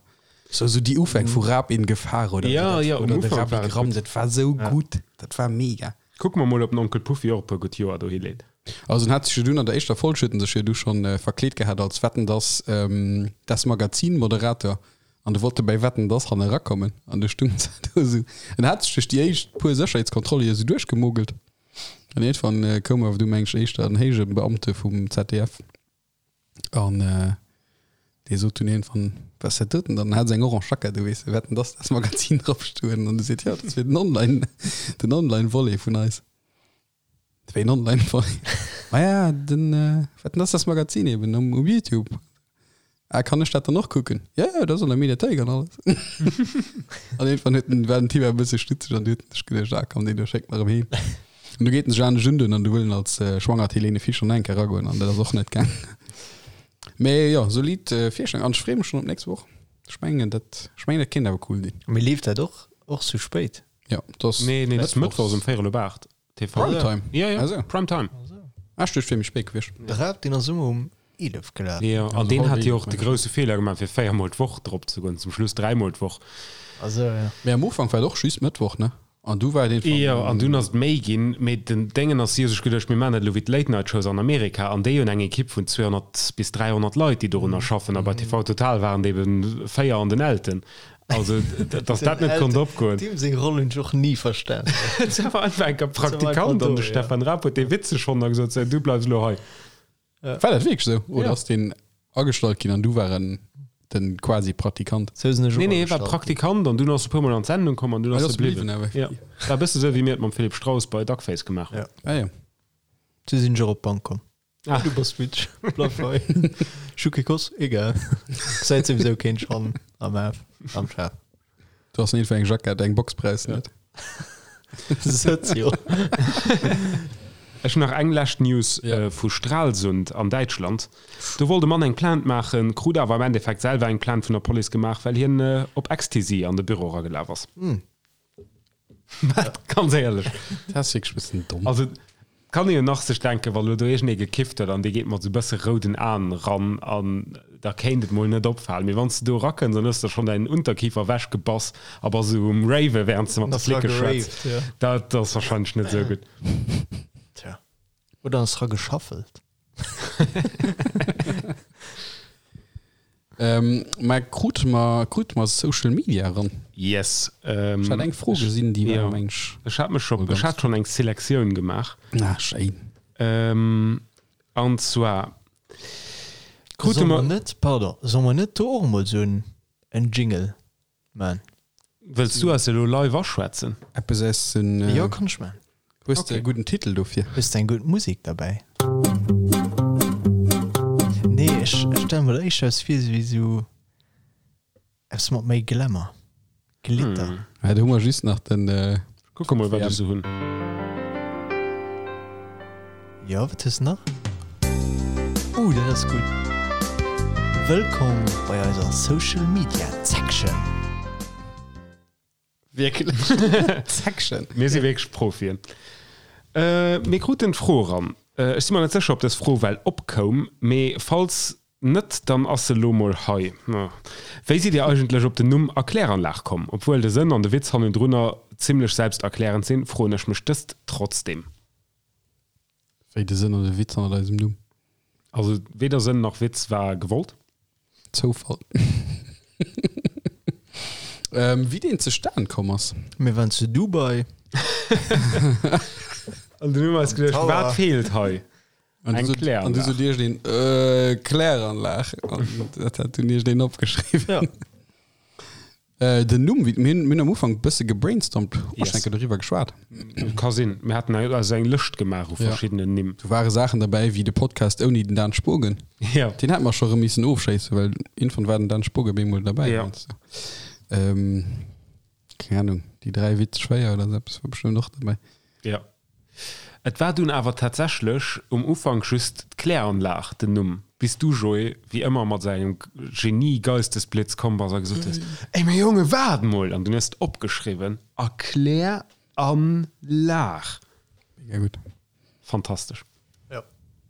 sou sou déi Ufäng vu Raab in Gefahr oder Ja, wéi dat, ja, um oder de Ufank Rabbi war et Gramm, gutt. dat war sou gutt, dat war mega. Kucke mer mol, ob den Onkel Puffy och e puer gutt Joer dohi leet. Also en hat sech jo dunn an der éischter Folg huet en sech jo du schonn verkleet gehat als Wetten dass das Magazin Moderator an du wollt e bäi Wetten dass han erakommen an du stung do esou. En hat sech duerch déi éischt puer Sécherheetskontrolle jo esou duerchgemogelt an iergendwann koum awer du meng ech éischter en héije Beamte vum ZDF an dee sot dunn iergendwann, Was ass dat doten dann? An hat esou eng orange Jackett u, weess de, Wetten dass das Magazin drop stoen an du seet, jo dat ass fir den Online den Online Volet vun eis. Wéi en online Volet? Maja, den, wat denn ass das Magazin eben um, um Youtube. Ah, kann ech dat dann och kucken? Ja, ja, dat ass an der Mediathéik an alles. An irgendwann huet den, war den Typ e bësse stutzeg an du huet sech geduecht, ah komm, deen do schéckt mer erëm heem. An du geet en sech anescht undoen an du wëll en als äh, schwangert Helene Fischer nach eng Kéier eragoen an dat ass och net gaang. Mee jo, solid äh, Virstellung an ech freeë mech schonn op d'nächst Woch. Ech mengen dat, ech mengen dat kéint awer cool ginn. Mee leeft dat och, och sou spéit? Ja, dat ass Nee, nee, dat ass mëttwochs um véierel op 8. TV. Primetime? Ja, ja, Also. Primetime. Ah, ech duecht, wier méi spéit gewiescht. De Raab, deen ass ëmmer um 11 gelaf. Ja, an Also deen halb hat jo 11, och de meng ech. grousse Feeler gemaach, fir véiermol d'Woch drop ze goen, zum Schluss dräimol d'Woch. Also, ja. Mee am Ufank war et och just Mëttwoch, ne? An du war et een Jo, van. an dunn ass et méi ginn. Mee den Déngen ass, si hu sech geduecht, mir maachen dat elo wéi d'Late Night Shows an Amerika. An déi hunn eng Ekipp vun 200 bis 300 Leit, déi dorunner schaffen. A bei TV Total waren et ebe véier an den Elten. Also, dass dat net konnt opgoen. Deem seng Roll hunn ech och ni verstan. Et war einfach enker Praktikant an de Stefan Raab huet dee witzeg fonnt a gesot, sou, du bleifs elo hei. War dat wierklech sou? Oder Ja. ass deen agestallt ginn an du war en den quasi Praktikant? Sou sinn ech och Nee, nee, war agestallt ginn. Praktikant an dunn ass e puer Mol an d'Sendung komm an dunn Ah, ass du ass e bliwwen. bliwwen, awer. Ja. War e bësse sou, wéi mir et mam Philippe Strauss bei Duckface gemaach hunn. Ja. Ah ja. Sou sinn ech och op d'Bank komm. Ah. Du bass witzeg, bleif hei. Ech hu kee Koss, egal. Gesäit souwisou keen schonn am Af, am Schaf. Du hast net fir eng Jackett, eng Box brauchs de net. Sëtz jo. Ech hunn nach eng lescht News Ja. vu Stralsund an Däitschland. Do wollt e Mann eng Plainte maachen, krut awer am Endeffekt selwer eng Plainte vun der Police gemaach, well hien op Ecstasy an de Büro eragelaf ass. Wat? Ganz éierlech. Dat ass wierklech e bëssen domm. Also kann ee jo nach sech denken, wa lo do iergendee gekifft huet an dee geet mat sou bësse rouden Aen ran an da kéint et mol net opfalen. Mee wann s de do erakënns an hues der schonn däin Unterkiefer ewechgebass a bass esou um Raven, wärend s de mat de Flicke schwätz, dat ass warscheinlech net esou gutt. Tja. Oder ass ra geschaffelt. Ähm, mä krute mer, krute mer Social Media eran? Yes. Ech hat eng Fro gesinn, déi war, meng ech. Ech hat mech scho, ech hat schonn eng Selektioun gemaach. Ah, schéin. Ähm, an zwar krute Solle mer mer. net, pardon, solle mer net do och emol esou en Jingle man? Wëlls du eis elo live aschwätzen? Eppes aus den. Jo, kann ech man. Hues de e gudden Titel dofir? Hues de eng gutt Musek derbäi? Nee, ech stelle mer dat éischter eppes vir wéi sou eppes mat méi Glamour, Glitter. Ja, do hu mer just nach den. Kucke mol, wat ech sou hunn. Jo, wat hues de nach? Uh, dat ass gutt. Wëllkomm bei eiser Social Media Section. Wierklech? Section? Mir si wierklech Profien. Mir kruten d'Fro eran. Ech si mer net sécher, ob dës Fro well opkoum, mee falls Net, dann ass se lo mol hei. Wéi sidd Dir eigentlech op den Numm Erkläranlag komm? Obwuel de Sënn an de Witz hannendrunner zimlech selbsterklärend sinn, froen ech mech dëst trotzdem. Wéi de Sënn an de Witz hannert eisem Numm? Also weder Sënn nach Witz war gewollt. Zoufall. Wéi deen zustan komm ass? Mir waren zu Dubai. An dunn hu mer eis geduecht, wat feelt hei? An Eng du sot, an du Kläranlag. sot iergendeen, äh, Kläranlag. An dat hat dunn iergendeen opgeschriwwen. Ja. Äh, den Numm, wéi, mir hunn, mir hunn am Ufank e bësse gebrainstormt, hu Yes. mer enke doriwwer geschwat. Ka sinn. Mir haten also eng Lëscht gemaach u Ja. verschiddenen Nimm. Do ware Saachen derbäi wéi de Podcast ouni den Dan Spogen. Ja. Deen hätte mer scho rëm missen ofschéissen, well irgendwann war den Dan Spogen bemol derbäi. Ja. Ähm, keng Ahnung. Déi 3 Witz schwéier oder sou eppes war bestëmmt och derbäi. Jo. Et war dunn awer tatsächlech um Ufank just d'Kläranlag den Numm, bis du, Joé, wéi ëmmer mat esou engem Genie-Geistesblitz komm bass a gesot hues, Ey, mee Jonge, waart mol! An dunn hues de opgeschriwwen, Erkläranlag. Mega gutt. Fantastesch. Jo.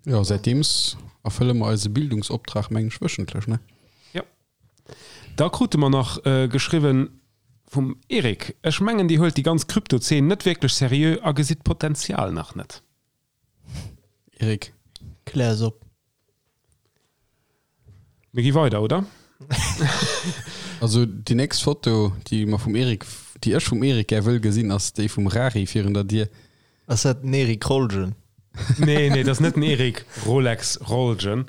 Jo, säitdeems erfëlle mer eise Bildungsoptrag, meng ech, wöchentlech, ne? Jo. Da krute mer nach geschriwwen vum Eric, Ech mengen dir huelt déi ganz Krypto-Zeen net wierklech seriö a gesitt d'Potenzial nach net. Eric. Klär es op. Mir gi weider, oder? Also déi nächst Foto, déi mer vum Eric, déi ech vum Eric gär wëll gesinn, ass déi vum Rari virun der Dier. Ass dat den Eric Rolgen? Nee, nee, dat ass net den Eric Rolex Rolgen,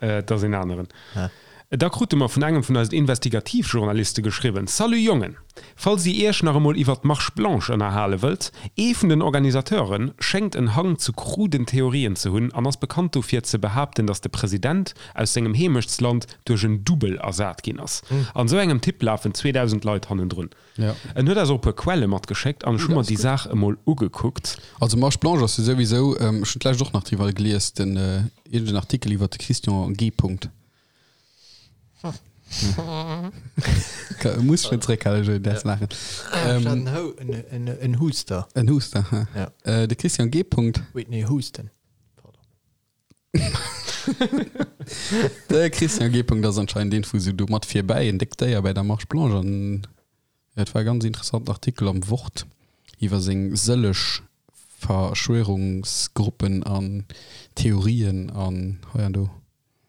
dat ass een aneren. Da krute mer vun engem vun eisen Investigativjournaliste geschriwwen, Salut Jongen! Falls dir iech nach emol iwwert d'Marche Blanche ënnerhale wëllt, ee vun den Organisateure schéngt en Hang zu kruden Theorien ze hunn an ass bekannt dofir ze behaapten, datt de President aus sengem Heemechtsland duerch en Dubbel ersat ginn ass. An esou engem Typ lafen 2000 Leit hannendrun. En huet eis och e puer Quelle matgeschéckt an ech hu mer déi Saach emol ugekuckt. Also Marche Blanche ass jo souwisou, ech hunn d'lescht och nach driwwer gelies, den iergend en Artikel iwwert de Christian G. Punkt. Muss schonn zréckhalen, Joé, däers laachen. Ech hat en Hou, en, en Huster. En Huster, ha. Ja. De Christian G. Punkt. Whitney Houston. Pardon. De Christian G. Punkt ass anscheinend een vu sou do mat virbäi, en déckt Déier bäi der Marche Blanche an et war e ganz interessanten Artikel am Wort iwwer seng sëlleg Verschwörungsgruppen an Theorien an hei an do.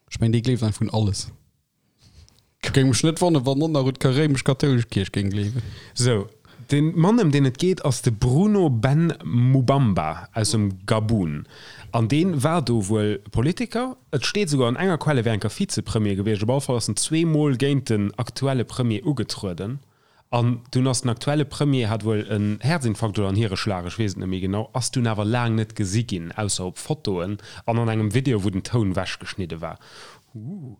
Ech mengen dee gleeft einfach un alles. Géing mech net wonneren, wann en nach un d'réimesch-kathoulesch Kierch géing gleewen. Sou, de Mann ëm deen et geet ass de Bruno Ben Moubamba aus dem Gabun. An dee war do wuel Politiker. Et steet esouguer an enger Quell, e wär enker Vizepremier gewiescht. Op alle Fall ass en zweemol géint den aktuelle Premier ugetrueden. An dunn ass den aktuelle Premier, hat wuel en Häerzinfarkt oder en Hiereschlag, ech weess et net méi genau, ass dunn awer laang net gesi ginn, ausser op Fotoen an an engem Video, wou den Toun wechgeschnidde war. Ooh.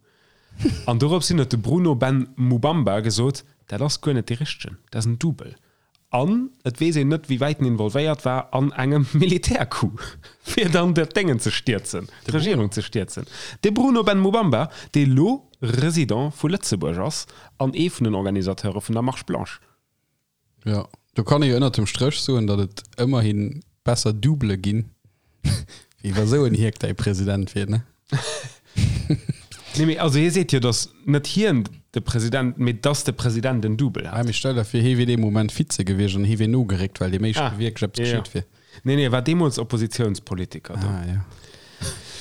An dorops hin huet de Bruno Ben Moubamba gesot, dat ass guer net dee richtegen, dat ass en Double. An et weess een net, wéi wäit en involvéiert war an engem Militärcoup, fir dann dat Déngen ze stierzen, d'Regierung ze stierzen. De Bruno Ben Moubamba, dee lo Resident vu Lëtzebuerg ass an ee vun den Organisateure vun der Marche Blanche. Jo, do kann ee jo ënnert dem Stréch soen, datt et ëmmerhi besser Doublë ginn, wéi wa sou en Hierk däi President wier, ne? Nee, mee also hie seet jo, datt net hien de President, mee datt de President en Double hat. Mee stell der vir, hie wier dee Moment Vize gewiescht an hie wier nogeréckt, well deem éischte wierklech eppes geschitt wier. Nee, nee, e war deemools Oppositiounspolitiker do. Ah, jo.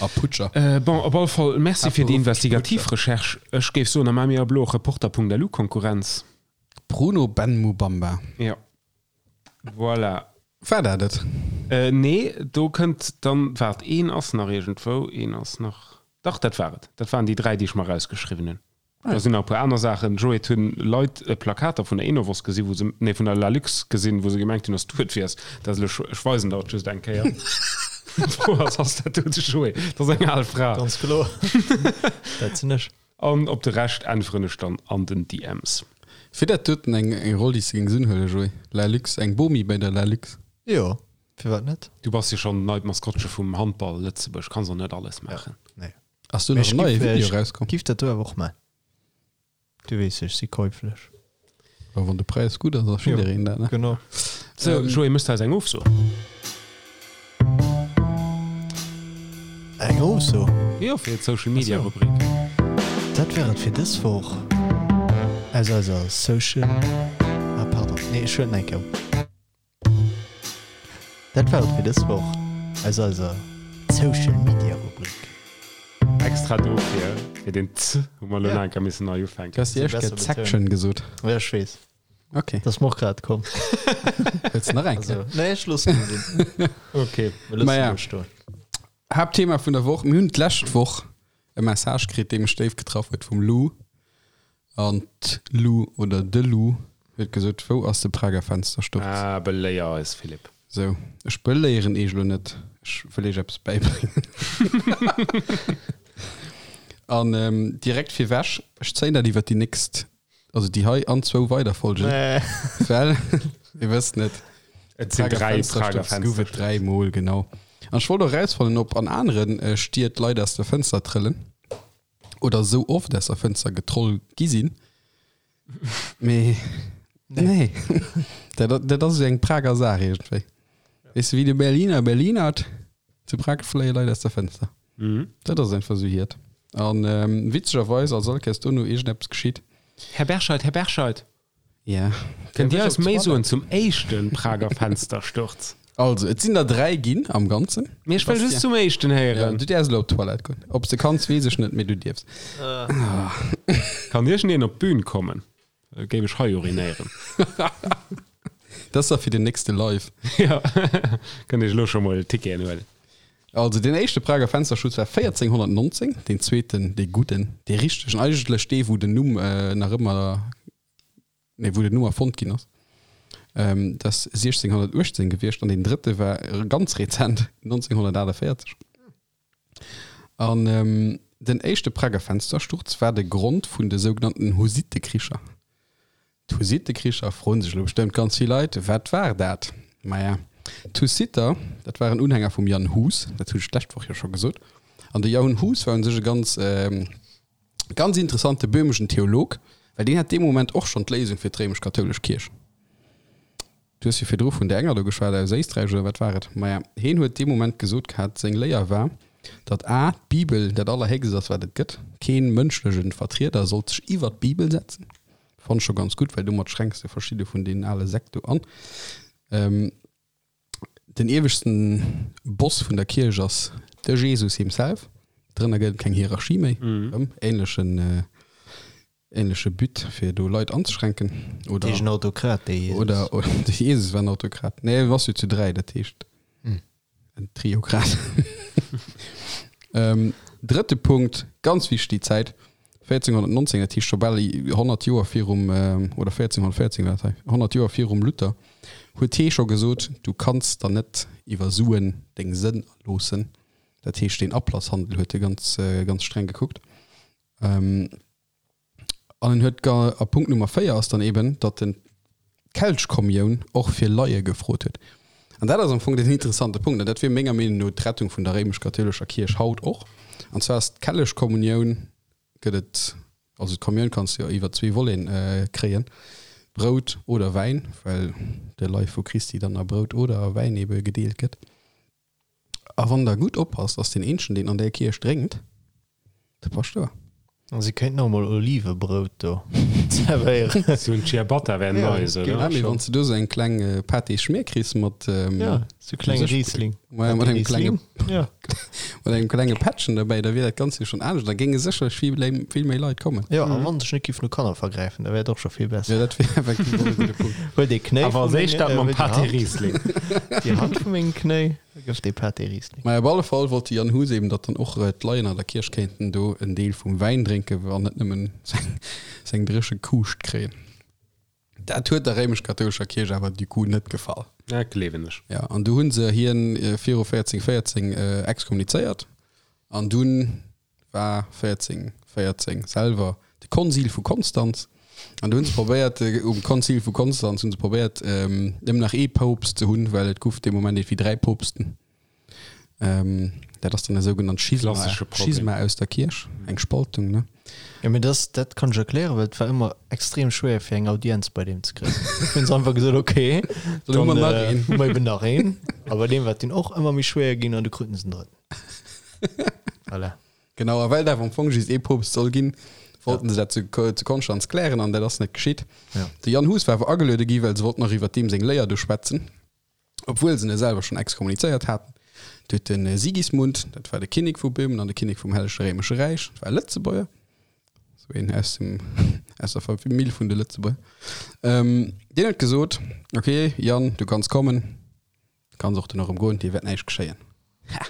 A Putscher. Bon, op alle Fall Merci fir déi investigativ Recherche. Ech géif soen, da maache mir ab elo och Reporter.lu Konkurrenz. Bruno Ben Mubamba. Jo. Voilà. War dat et? Nee, do kënnt dann, waart, een ass nach iergendwou, een ass nach, dach, dat war et. Dat waren déi 3, déi ech mer erausgeschriwwen hunn. Da sinn nach e puer aner Saachen. Joé, et hunn Leit Plakater vun der Enovos gesinn, wou se, nee, vun der Lalux gesinn, wou se gemengt hunn, dass du et wiers. Dat ass elo, ech weisen der et just eng Kéier. D'Fro ass, ass dat do de Joé? Dat ass eng al Fra. Ganz kloer. Dat sinn ech. An op de Rescht äntweren ech dann an den DMs. Wier dat doten eng Roll déi s de géings unhuelen, Joé? La Lux, eng Bomi bei der La Lux? Jo, firwat net? Du bass jo schonn neit Maskottche vum Handball Lëtzebuerg, kanns och net alles maachen. Nee. Ass do nach en neie Video erauskomm? Ech giff dat do awer och maachen. Du weess, ech si käuflech. Jo, wann de Präis gutt ass, ass jiddereen dat, ne? Genau. Sou, Joé, mëss de eis eng Ofso? Eng Ofso? Jo, fir d'Social Media Rubrik. Dat war et fir dës Woch aus eiser Social. Ah, pardon, nee, ech huelen eng Kéier op. Dat war et fir dës Woch aus eiser Social Media Rubrik. Extra dofir, fir den z hu mer elo nach eng Kéier missen nei ufänken. Du has déi éischt Kéier d'Section gesot. Ja, ech weess. Ok. Dat ass mer och grad komm. Wëlls de nach eng Kéier? Also, nee, ech loossen et sinn. Ok. Mir loossen Maja. et stoen. Haaptthema vun der Woch, Mir hunn d'lescht Woch e Message kritt, dee mech déif getraff huet, vum Lou. An d'Lou oder de Lou huet gesot, Wou ass de Prager Fenstersturz? Ah, beléier eis, Philippe. Sou, ech beléieren eech elo net, ech wëll eech eppes bäibréngen. An direkt virwech, ech zéien dat iwwer déi nächst, also déi hei an zwou weider Folgen, well, Mir wëssen et. Et sinn 3 Prager Fenster. Gouf et 3 mol, genau. An ech wollt och erausfannen, ob an aneren Stied Leit aus der Fënster trëllen oder esou oft aus der Fënster getroll gi sinn. Mee nee, dat, dat ass esou eng Prager Saach iergendwéi. Weess de, wéi de Berliner Berlinert, zu Prag fléie Leit aus der Fënster. Dat ass einfach esou hiert. An witzegerweis ass all Kéiers dono iergendeppes geschitt. Här Berscheid, Här Berscheid! Ja. Kënnt Dir eis méi soen zum éischte Prager Fenstersturz? Also, et sinn der 3 ginn am Ganzen. Mee ech wëll just zum éischten héieren. Ja, du däerfs elo op d'Toilette goen. Ob s de kanns, weess ech net, mee du dierfs. Kann iergendeen op d'Bün kommen? Da géif ech hei urinéieren. Dat ass da fir den nächste Live. Ja, kënnt Iech elo scho mol Ticketen huelen. Also, deen éischte Prager Fensterschutz war 1419, deen zweeten, dee gudden, dee richtegen, eigentlech dee, wou den Numm nach ëmmer nee wou den Numm erfonnt ginn ass, dat ass 1618 gewiescht an deen drëtte war ganz rezent 1948. An den éischte Prager Fenstersturz war de Grond vun de sougenannten Hussittekricher. D'Hussittekricher, froen sech elo bestëmmt ganz vill Leit, wat war dat? Maja, d'Hussiter, dat waren Unhänger vum Jan Hus, dat hunn ech d'lescht Woch jo scho gesot. An de Jan Hus war un sech e ganz Ganz interessant, de böhmeschen Theolog, well deen hat dee Moment och schonn d'Léisung fir d'réimesch-kathoulesch Kierch. Du hues jo virdru vun där enger do geschwat aus Éisträich, oder wat war et? Maja, heen huet dee Moment gesot gehat, seng Léier war, datt a d'Bibel dat Allerhéchst ass, wat et gëtt, keen mënschlechen Vertrieder sollt sech iwwer d'Bibel setzen. Fannt ech scho ganz gutt, well domat schränks de verschidde vun deenen ale Sekt do an. Den ieweschten Boss vun der Kierch ass de Jesus himself. Drënner gëtt et keng Hierarchie méi. Erëm ähnlechen, ähnleche But fir do Leit anzeschränken. Oder, Heescht en Autokrat, dee Jesus? Oder, de Jesus war en Autokrat. Nee, en ass jo zu 3, dat heescht en Triokrat. Drëtte Punkt, ganz wichteg déi Zäit, 1419, dat heescht scho bal 100 Joer virum, oder 1414 war dat hei, 100 Joer virum Luther, huet hee scho gesot, du kanns der net iwwer Suen deng Sënn erloossen. Dat heescht, deen Ablasshandel huet e ganz, ganz streng gekuckt. An en huet, a Punkt Nummer 4 ass dann eben, datt en d'Kelchkommioun och fir Laie gefrot huet. An dat ass am Fong den interessante Punkt, an dat wier menger Meenung no d'Rettung vun der réimesch-kathoulescher Kierch haut och. An zwar ass d'Kelchkommunioun, gëtt et, also d'Kommioun kanns de jo iwwer zwee Voleten kréien, Brout oder Wäin, well de Leif vu Christi dann a Brout oder a Wäin ebe gedeelt gëtt. A wann der gutt oppasst, ass deen eenzegen, deen an där Kierch drénkt, de Paschtouer. A si kéinten och mol Olivebrout do zerwéieren. Sou en Ciabatta wär nice, oder? Ja, mee wann s de do sou eng kleng Pâté-Schmier kriss mat. Ja, sou klenge Riesling. Maja, mat engem klenge. Ja. Mat engem klenge Pättchen derbäi, da wier dat Ganzt jo schonn anescht. Da géinge sécherlech vill, vill méi Leit kommen. Jo, a wann sech net giff no Kanner vergräifen, da wär et och scho vill besser. Jo, dat wier effektiv och e gudde Punkt. Huel dee Knéi Awer vu als éischt menge, dat mam huel déi Pâté Hand, Riesling. déi Hand vu mengem Knéi, da gëff dee Pâté Riesling. Maja, op alle Fall wollt de Jan Hus eben, datt dann och d'Leien an der Kierch kéinten do en Deel vum Wäin drénken, an net nëmmen seng, seng dréche Kuuscht kréien. Dat huet der réimesch-kathoulescher Kierch awer du coup net gefall. Dat gleewen ech. Ja, an du hunn se hien viru 1414 exkommunizéiert an dunn war 1414 selwer de Konzil vu Konstanz an du hunn se probéiert, um Konzil vu Konstanz hunn se probéiert nëmmen nach ee Poopst ze hunn, well et guff dee Moment iergendwéi 3 Poopsten. Dat ass dann e sougenannt Schisma, Klassesche Problem. Schisma aus der Kierch, eng Spaltung, ne? Jo, mee das, dat kann ech erklären, well et war ëmmer extrem schwéier fir eng Audienz bei deem ze kréien. Hunn se einfach gesot, okay, Dann hu mer dann nach äh, een. hu mer eben nach een. A bei deem war et dunn och ëmmer méi schwéier ginn an du kruten se den drëtten. Voilà. Genau, a well et awer am Fong just ee Poopst soll ginn, wollten se dat zu, zu Konstanz klären an dat ass net geschitt. Ja. De Jan Hus war awer ageluede gi, well se wollten nach iwwer deem seng Léier do schwätzen. Obwuel se en selwer schonn exkommunizéiert haten. Du huet de Sigismund, dat war de Kinnek vu Böhmen an de Kinnek vum Hellege Réimesche Räich, dat war e Lëtzebuerger, sou een aus dem, aus der Famill vun de Lëtzebuerger, deen huet gesot, Ok, Jan, du kanns kommen, du kanns och duerno erëm goen, dir wäert näischt geschéien. Ha!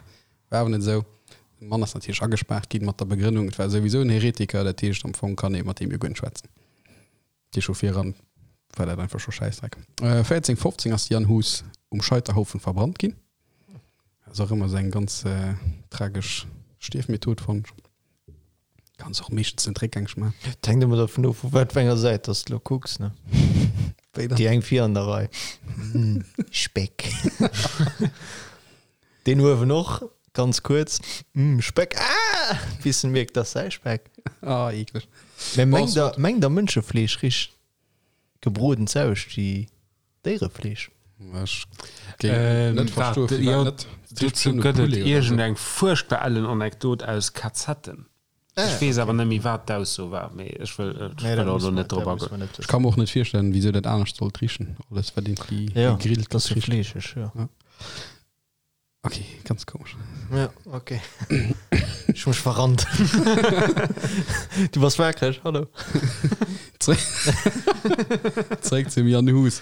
War awer net esou. De Mann ass natierlech agespaart ginn, mat der Begrënnung, et war souwisou en Heretiker, dat heescht, am Fong kann ee mat deem jo guer net schwätzen. Déi scho viran war dat einfach scho Schäissdreck. 1415 ass de Jan Hus um Scheiterhaufen verbrannt ginn. Ass och ëmmer esou eng ganz tragesch Stierfmethod, fannen ech. Kanns och meeschtens net réckgängeg maachen. Et hänkt ëmmer dervun of, vu wat fir enger Säit dass de lo kucks, ne? Wéi dann? Déi eng vir an der Rei. Mm, Speck. Deen uewen och, ganz kuerz. Mm, Speck. Ah! Bis en mierkt, dass säi Speck. Ah, eekleg. Mä mengt der, mengt der Mënschefleesch richt gebroden z'auscht wéi Déierefleesch? Ech géing net verstoen, firwat net. Dozou gëtt et iergendeng fuerchtbar ellen Anekdot aus Kazetten. Ech weess awer net méi wat d'Ausso war, mee ech wëll ech wëll och elo net drop agoen. Ech ka mer och net virstellen, wisou dat anescht sollt richen. Alles wat iergendwéi gegrillt gëtt, richt. Fleescheg, jo. Ok, ganz komesch. Ja, ok. Ech hu mech verrannt. Du bass waakreg, hallo. Zeréck zum Jan Hus.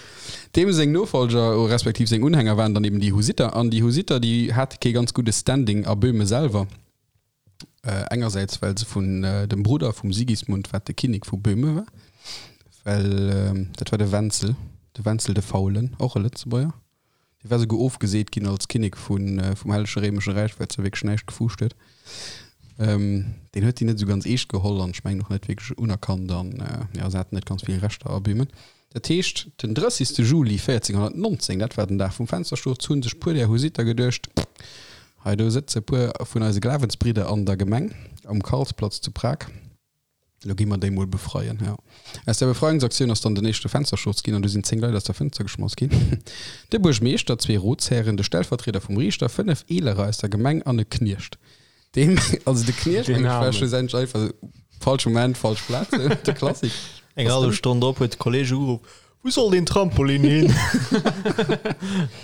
Deem seng Nofolger, respektiv seng Unhänger waren dann eben déi Husitter. An déi Husitter, déi hate kee ganz gudde Standing a Böhme selwer. Engersäits well se vun dem Brudder vum Sigismund, wat de Kinnek vu Böhme war, well dat war de Wenzel, de Wenzel de Faulen, och e Lëtzebuerger, dee war souguer ofgeseet ginn als Kinnek vum Hellege Réimesche Räich, well se wierklech näischt gefuuscht huet. Deen huet déi net esou ganz eescht geholl an ech mengen och net wierklech unerkannt an jo, se haten net ganz vill Rechter a Böhmen. Dat heescht, den 30. Juli 1419, dat war den Dag vum Fenstersturz, hu sech puer där Husitter geduecht, Hei do sëtze puer vun eise Glawensbridder an der Gemeng um Karlsplatz zu Prag, elo gi mer déi mol befreien. Jo, aus där Befreiungsaktioun ass dann den éischte Fenstersturz ginn an du sinn 10 Leit aus der Fënster geschmass ginn, de Buergmeeschter, zwee Ratshären, de Stellvertrieder vum Riichter, 5 Eelerer aus der Gemeng an e Kniecht. Deem, also de Kniecht, Den mengen ech, war Armen. schlussendlech einfach falsch Moment, falsch Plaz, de Klassik. Eng hallef Stonn drop huet de Kolleg ugeruff, Wou soll deen Trampolin hin?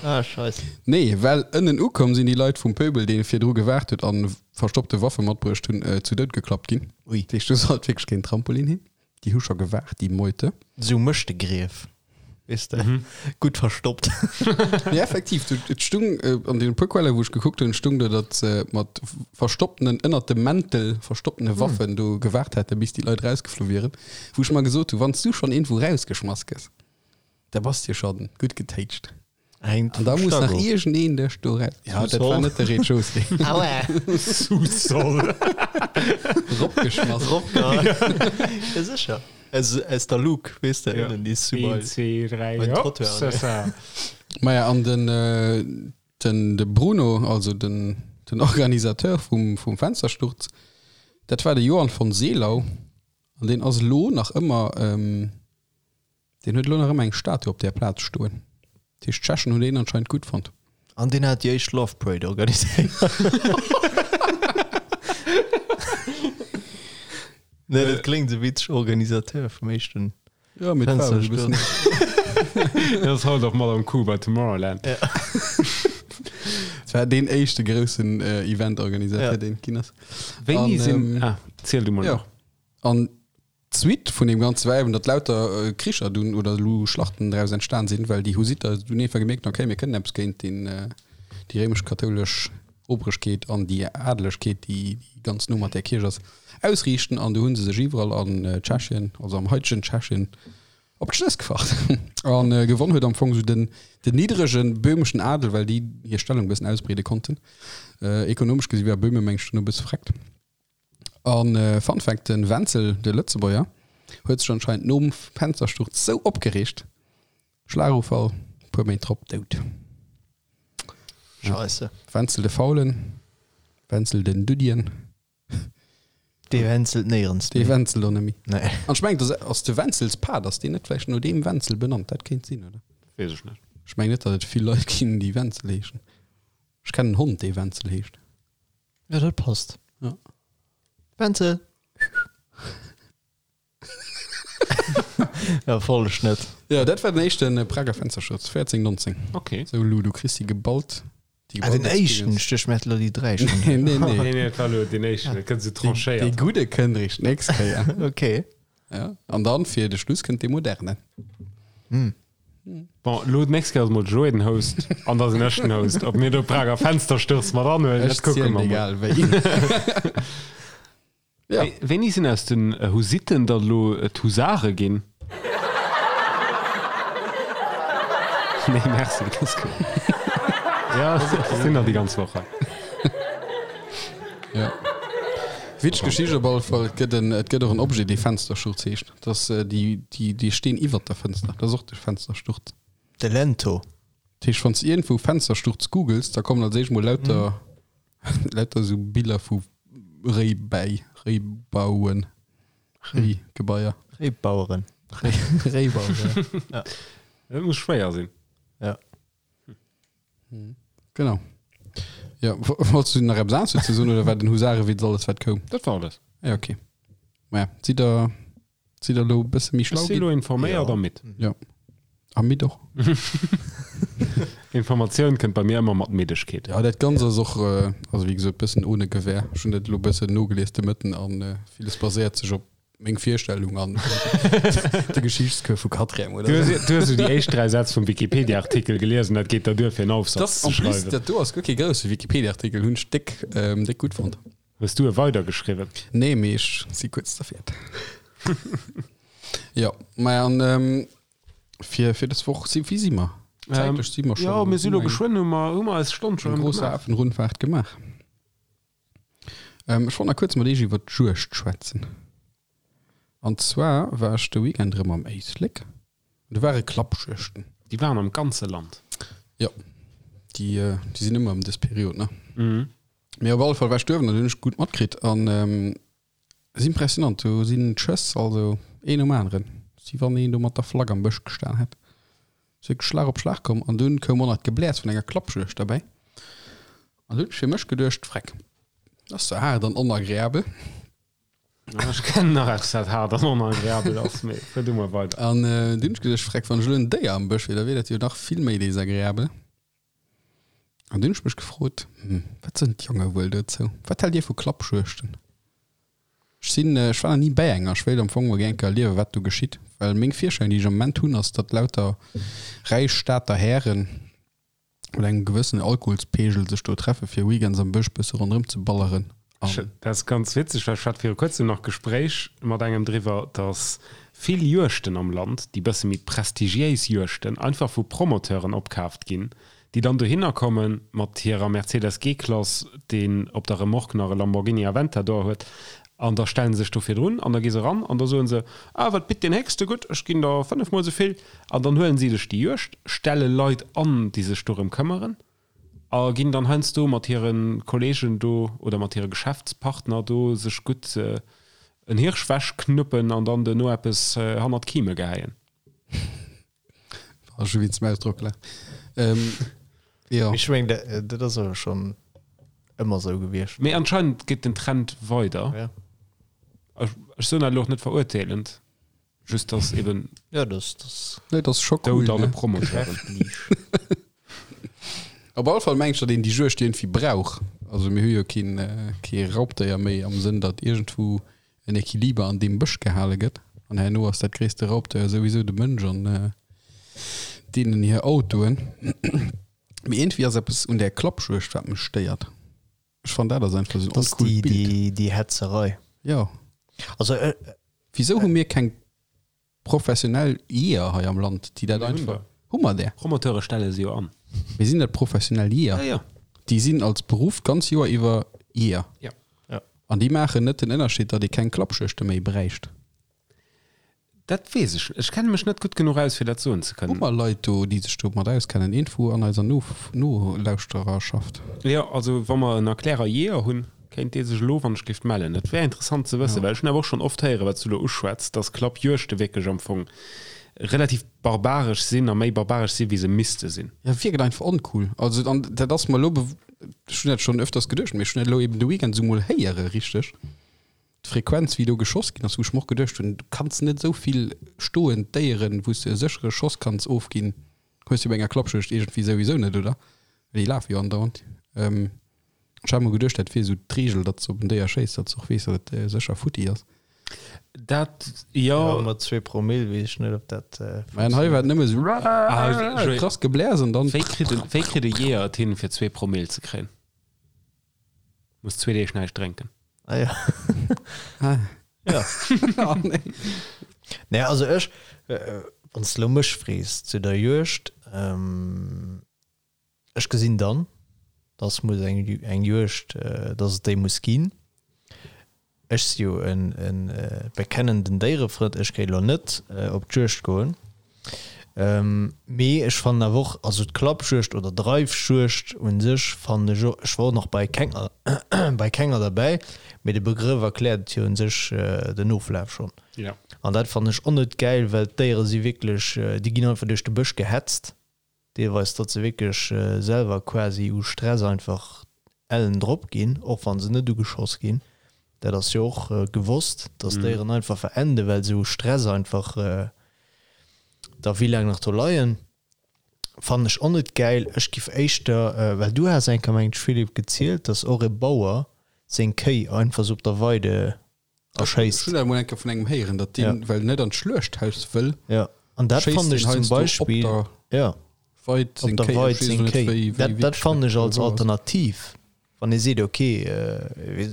Ah, Scheiss. Nee, well ënnen ukomm sinn déi Leit vum Pöbel, dee virdru gewaart huet an verstoppte Waffe matbruecht hunn, zu Doud geklappt ginn. Ui. Dat heescht, do sollt wierklech keen Trampolin hin. Déi hu scho gewaart, déi Meute. Sou mécht de Grief, weess de, gutt verstoppt. Nee, effektiv, du, et stung an deene puer Quellen, wou ech gekuckt hunn, stung do, datt se mat verstopptenen, ënnert dem Mäntel verstopptene Waffen do gewaart hätten, bis déi Leit rausgeflu wieren. Wou ech mer gesot hu, wann s du schonn iergendwou rausgeschmass gëss, da bass de jo scho gutt getéitscht. Hängt An da vum muss nach Stack of. iergendeen dech do raus. Ja, dat war net de Rez-de-chaussée. Aua! Sous-sol. Ropgeschmass. Ropgehauen. Ja, sécher. Aus, aus der Luke, weess de, ënnen déi Een, Sous-Bail. zwee, dräi, Beim hopp, Trottoir, c'est ne? ça. Maja, an den, den, de Bruno, also den, den Organisateur vum, vum Fenstersturz, dat war de Johann von Seelau. An deen ass elo nach ëmmer, Deen huet elo nach ëmmer eng Statue op där Plaz stoen. Dat heescht, d'Tschechen hunn deen anscheinend gutt fonnt. An deen hat déi éischt Love Parade organiséiert. Nee, dat kléngt esou witzeg, Organisateur vum éischten Ja, mee et war e bëssen. Dat ass haut och mat am Coup bei Tomorrowland. Et war deen éischte groussen Event-Organisateur, Ja. deen et ginn ass. Wéini An, sinn. Ah, ziel du mol ja. nach. An D'Suite vun deem ganze war eben, datt lauter Kricher dunn oder elo Schlachten draus entstan sinn, well déi Husitter dunn einfach gemierkt hunn, okay, mir kënnen eppes géint deen, déi réimesch-kathoulesch Oberegkeet an déi Adelegkeet, déi ganz no mat där Kierch ass, ausriichten. An du hu se sech iwwerall an Tschechien, also am haitegen Tschechien, op d'Schnëss gefacht. A gewonn huet am Fong esou den, den niddrege böhmeschen Adel, well déi hir Stellung e bëssen ausbreede konnten. Ekonomesch gesi war Böhme, meng ech, dunn e bësse vreckt. An Fun Fact, den Wenzel, de Lëtzebuerger, huet sech anscheinend nom Fenstersturz sou opgereegt, Schlagufall, puer Méint drop dout. Scheisse. Wenzel de Faulen, Wenzel den Duddien. Dee wenzelt néierens Dee méi. wenzelt och net méi. Nee. An ech mengen, dass ass de Wenzelspaad, ass deen net vläicht no deem Wenzel benannt? Dat kéint sinn, oder? Weess ech net. Ech mengen net, datt et vill Leit ginn, déi Wenzel heeschen. Ech kennen en Hond, dee Wenzel heescht. Ja, dat passt. Ja. Wenzel! ja, voll Schnëtt. Ja, dat war den éischten Prager Fensterschutz, 1419. Okay. Sou, Lou, du kriss déi geballt. Déi Ah, den geballt éischten, Experience. ech duecht, mir hätte lo déi 3 schon. Nee, nee, nee. Nee, nee, dat war lo den éischten, dat gëtt sou Dee tranchéiert. gudde kënnt eréischt d'nächst Kéier. Okay. Ja. An dann fir de Schluss kënnt dee moderne. Hm. Bon, lo d'nächst Kéier ass mol de Joé den Host an da sinn ech den Host. Ob mir do Prager Fenstersturz mat anhuelen, Ech dat kucke zielen mer mol. egal wéi. Ja. Wéi- Wéini sinn aus den Husitten dann elo d'Husare ginn? Nee, merci, dat ass gutt. Ja, ech sinn nach déi ganz Woch hei. Ja. Witzeg Geschicht op alle Fall. Et gëtt en, et gëtt och en Objet, dee Fenstersturz heescht. Dat ass déi, déi, dee Steen iwwert der Fënster. Dat ass och de Fenstersturz. De Lento. Dat heescht, wann s de iergendwou Fenstersturz googles, da kommen als éischt mol lauter, lauter esou Biller vu Réibäi, Réibauen, Réigebaier. Réibaueren. Réibaueren, ja. Dat muss schwéier sinn. Ja. Genau. Ja, wolltest du nach eppes anescht dozou soen oder war den Husarewitz alles wat koum? Dat war alles. Ja, okay. Maja, sidd der, sidd der elo e bësse méi schlau Ech si elo informéiert a midd. Ja. A midd och. Informatioun kënnt bei mir ëmmer mat Middegkeet. Ja, dat Ganzt ass och, also wéi gesot, bëssen ohne Gewähr. Ech hunn dat elo bëssen nogelies de Mëtten an villes baséiert sech op Meng Virstellung an de Geschichtscours vu Quatrième, oder? Du hues, du hues déi éischt 3 Sätz vum Wikipedia-Artikel gelies an dat geet der duer fir en Aufsatz ze schreiwen. Dat do ass guer kee grousse Wikipedia-Artikel, hunn ech déck, déck gutt fonnt. Hues du e weidergeschriwwen? Nee, mee ech si kuerz derfir. Jo, maja, an fir, fir dës Woch si, wéi si mer? Zäitlech si mer schonn. Jo, mir si lo geschwënn, hu mer, hu mer eis Stonn scho rëm gemaach. Eng grosse Afenrundfahrt gemaach. Ech wollt nach kuerz mat iech iwwer d'Juegd schwätzen. An zwar war ech de Weekend erëm am Éislek an do ware Klappjuegten. Déi waren am ganze Land. Jo, déi déi sinn ëmmer ëm dës Period, ne? Mee op alle Fall war ech duerwen an hunn ech gutt matkritt an ass impressionant. Do sinn d'Schëss also een nom aneren, wéi wann een do mat der Flagg am Bësch gestan hätt. Ass wierklech Schlag op Schlag komm an dunn koum och nach d'Gebläers vun enger Klappjuegd derbäi. An hunn ech fir mech geduecht, Freck, dat ass zwar haart an onagreabel. Ech kennen nach eppes, wat haart an onagreabel ass, mee fuer du mol weider. An dunn hunn ech geduecht, Freck, wann ech elo en Déier am Bësch wier, da wier dat jo nach vill méi desagreabel. An dunn hunn ech mech gefrot, Hm, wat soen d'Jonge wuel dozou? Wat haalt Dir vu Klappjuegten? Ech sinn, ech war nach ni bäi enger. Ech wéilt am Fong mol gär eng Kéier erliewen, wat do geschitt. Well meng Virstellung, déi ech am Moment hunn, ass, datt lauter räich Stater Hären mat engem gewëssenen Alkoholspegel sech do treffe fir weekends am Bësch bësse ronderëm ze balleren. An. Dat ass ganz witzeg, well ech hat viru kuerzem nach Gespréich mat engem driwwer, datt vill Juegten am Land, déi bësse méi prestigiéis Juegten, einfach vu Promoteuren opkaaft ginn, déi dann dohinner komme mat hirer Mercedes G-Klass, deen op der Remorque nach e Lamborghini Aventador huet, an da stelle se sech do virdrun an da gi se eran an da soe se, Ah, wat bitt deen Héchste? Gutt, ech ginn der fënnefmol esou vill. An dann huelen si sech déi Juegd, stelle Leit an, déi sech dorëm këmmeren a ginn dann heiansdo mat hire Kollegen do oder mat hire Geschäftspartner do sech gutt en Hirsch wechknuppen an dann duerno eppes hannert d'Kime gehäien. War schon wéinst dem Ausdrock gelacht. Ähm, ja. Ech meng, dat, dat ass awer schon ëmmer sou gewiescht. Mee anscheinend geet den Trend weider. Ja. Ech, ech soen dat elo och net verurteelend, just dass eben Ja, das, das Nee, das ist schon cool. Doud alle Ne? Promoteuren. Op alle Fall meng ech, datt een déi Juegd iergendwéi brauch. Also mir hu jo keen, äh, kee Raubdéier méi am Sënn, datt iergendwou en Equiliber an deem Bësch gehale gëtt. An herno ass dat gréisste Raubdéier souwisou de Mënsch an deenen hir Autoen. Mee iergendwéi ass eppes un där Klappjuegd, wat mech stéiert. Ech fannen, dat ass einfach esou en Das oncoolt déi, Bild. déi, déi Hetzerei. Jo. Also, äh, Wisou hu mir keng Professionell Jeeër hei am Land, déi dat einfach. Hu mer där? Promoteure stelle se jo an. Mee sinn dat professionell Jeeër? Ja, ja. Déi sinn als Beruff d'ganz Joer iwwer Jeeër. Ja. Ja. An déi maachen net den Ënnerscheed, datt ee keng Klappjuegte méi bräicht. Dat weess ech. Ech kenne mech net gutt genuch aus, fir dat soen ze Hu kënnen. mer Leit do, déi sech domat auskennen? Iergendwou an eiser Nolauschtererschaft? Jo, also wa mer en Erklärer Jeeër hunn, Kéint dee sech elo wann ech géif mellen? Dat wär interessant ze wëssen, well ech hunn awer och schonn oft héieren, wat s du elo uschwätz, dass Klappjuegte wierklech am Fong relativ barbaresch sinn a méi barbaresch sinn, wéi se misste sinn. Ja, wierkt einfach oncool. Also, an dat ass mer elo, ech hunn dat schonn öfters geduecht, mee ech hunn dat elo eben de Weekend esou mol héiere richteg, d'Frequenz wéi do geschoss ginn ass, wou ech mer och geduecht hunn, du kanns net esou vill stoend Déieren, wou s de e séchere Schoss kanns ofginn, hues du bei enger Klappjuegd iergendwéi souwisou net, oder? Well déi lafe jo andauernd. Ech hat mol geduecht, dat wier esou d'Reegel, datt s de op en Déier schéiss, datt s och weess, datt et sécher futti ass. Dat, jo. Jo, mat zwee Promill weess ech net, ob dat Mä an hei war et nëmme esou krass Gebläers an dann. Wéi kritt en, wéi kritt e Jeeër et hin, fir zwee Promill ze kréien? Muss zwee Deeg näischt drénken. Ah ja. Ja. Oh nee. Nee, also ech, wann s de elo mech frees zu der Juegd, Ech gesinn dann, dass muss eng, eng Juegd, dass et déi muss ginn. Ech si jo e bekennenden Déierefrënd, ech géif elo net op d'Juegd goen. Mee ech fannen awer och, also d'Klappjuegd oder Dreifjuegd u sech fannen ech och, ech war och nach bei kenger bei kenger derbäi, mee de Begrëff erkläert et jo u sech den Oflaf schonn. An dat fannen ech och net gäil, well d'Déiere si wierklech, déi ginn einfach duerch de Bësch gehetzt. Deelweis datt se wierklech selwer quasi u Stress einfach ellen drop ginn, och wa se net ugeschoss ginn. Dat ass jo och gewosst, datt Déieren einfach verenden, well se u Stress einfach da wéi laang nach do leien. Fannen ech och net gäil. Ech giff éischter, well du has eng Kéier mengen ech Philippe gezielt, datt och e Bauer seng Kéi einfach sou op der Weide erschéisst. Ech hunn dat emol eng Kéier vun engem héieren, datt deen, well en net an d'Schluechthaus wëll, Ja, an dat schéisst fannen deen ech zum heiansdo op Beispill, der ja, Weid op seng der Kéi. Weid Ech weess seng elo net, Kéi. wéi, wéi Dat, dat wierklech fannen dat ech als genau ass. Alternativ, wann ee seet, okay,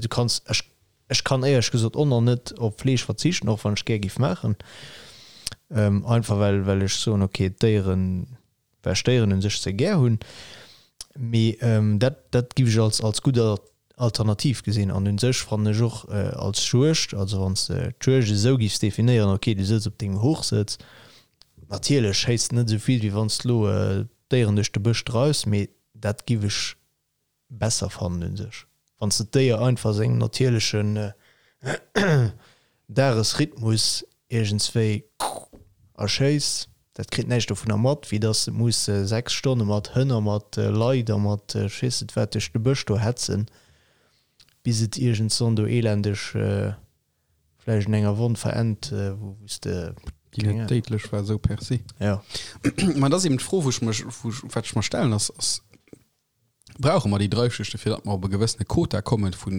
du kanns, ech, ech kann éierlech gesot och nach net op Fleesch verzichten, och wann ech gär giff maachen, einfach well, well ech soen, okay, d'Déieren, well ech Déieren un sech ze gär hunn, mee dat dat giff ech als als gutt Alternativ gesinn. An un sech fannen ech och als Juegd, also wann s de d'Juegd esou giffs definéieren, ok du sëtz op dengem Hochsëtz, natierlech schéiss de net esou vill wéi wann s de lo d'Déieren duerch de Bësch dreifs, mee dat giff ech besser fannen un sech wann s de d'Déier einfach sengem natierlechen Dagesrhythmus iergendswéi erschéiss, dat kritt näischt dovunner mat, wéi dass et muss 6 Stonne mat Hënn a mat Leit a mat ech weess net wat duerch de Bësch do hetzen, bis et iergendswann do elendeg vläicht un enger Wonn verennt, wou s de. Déi net déidlech war, esou per se. Jo. Mä et ass eben d'Fro, wou ech mech, wou ech, wat ech mer stellen, ass, ass, Brauche mer déi Dreifschichte, fir datt mer op e gewëssene Quota kommen vu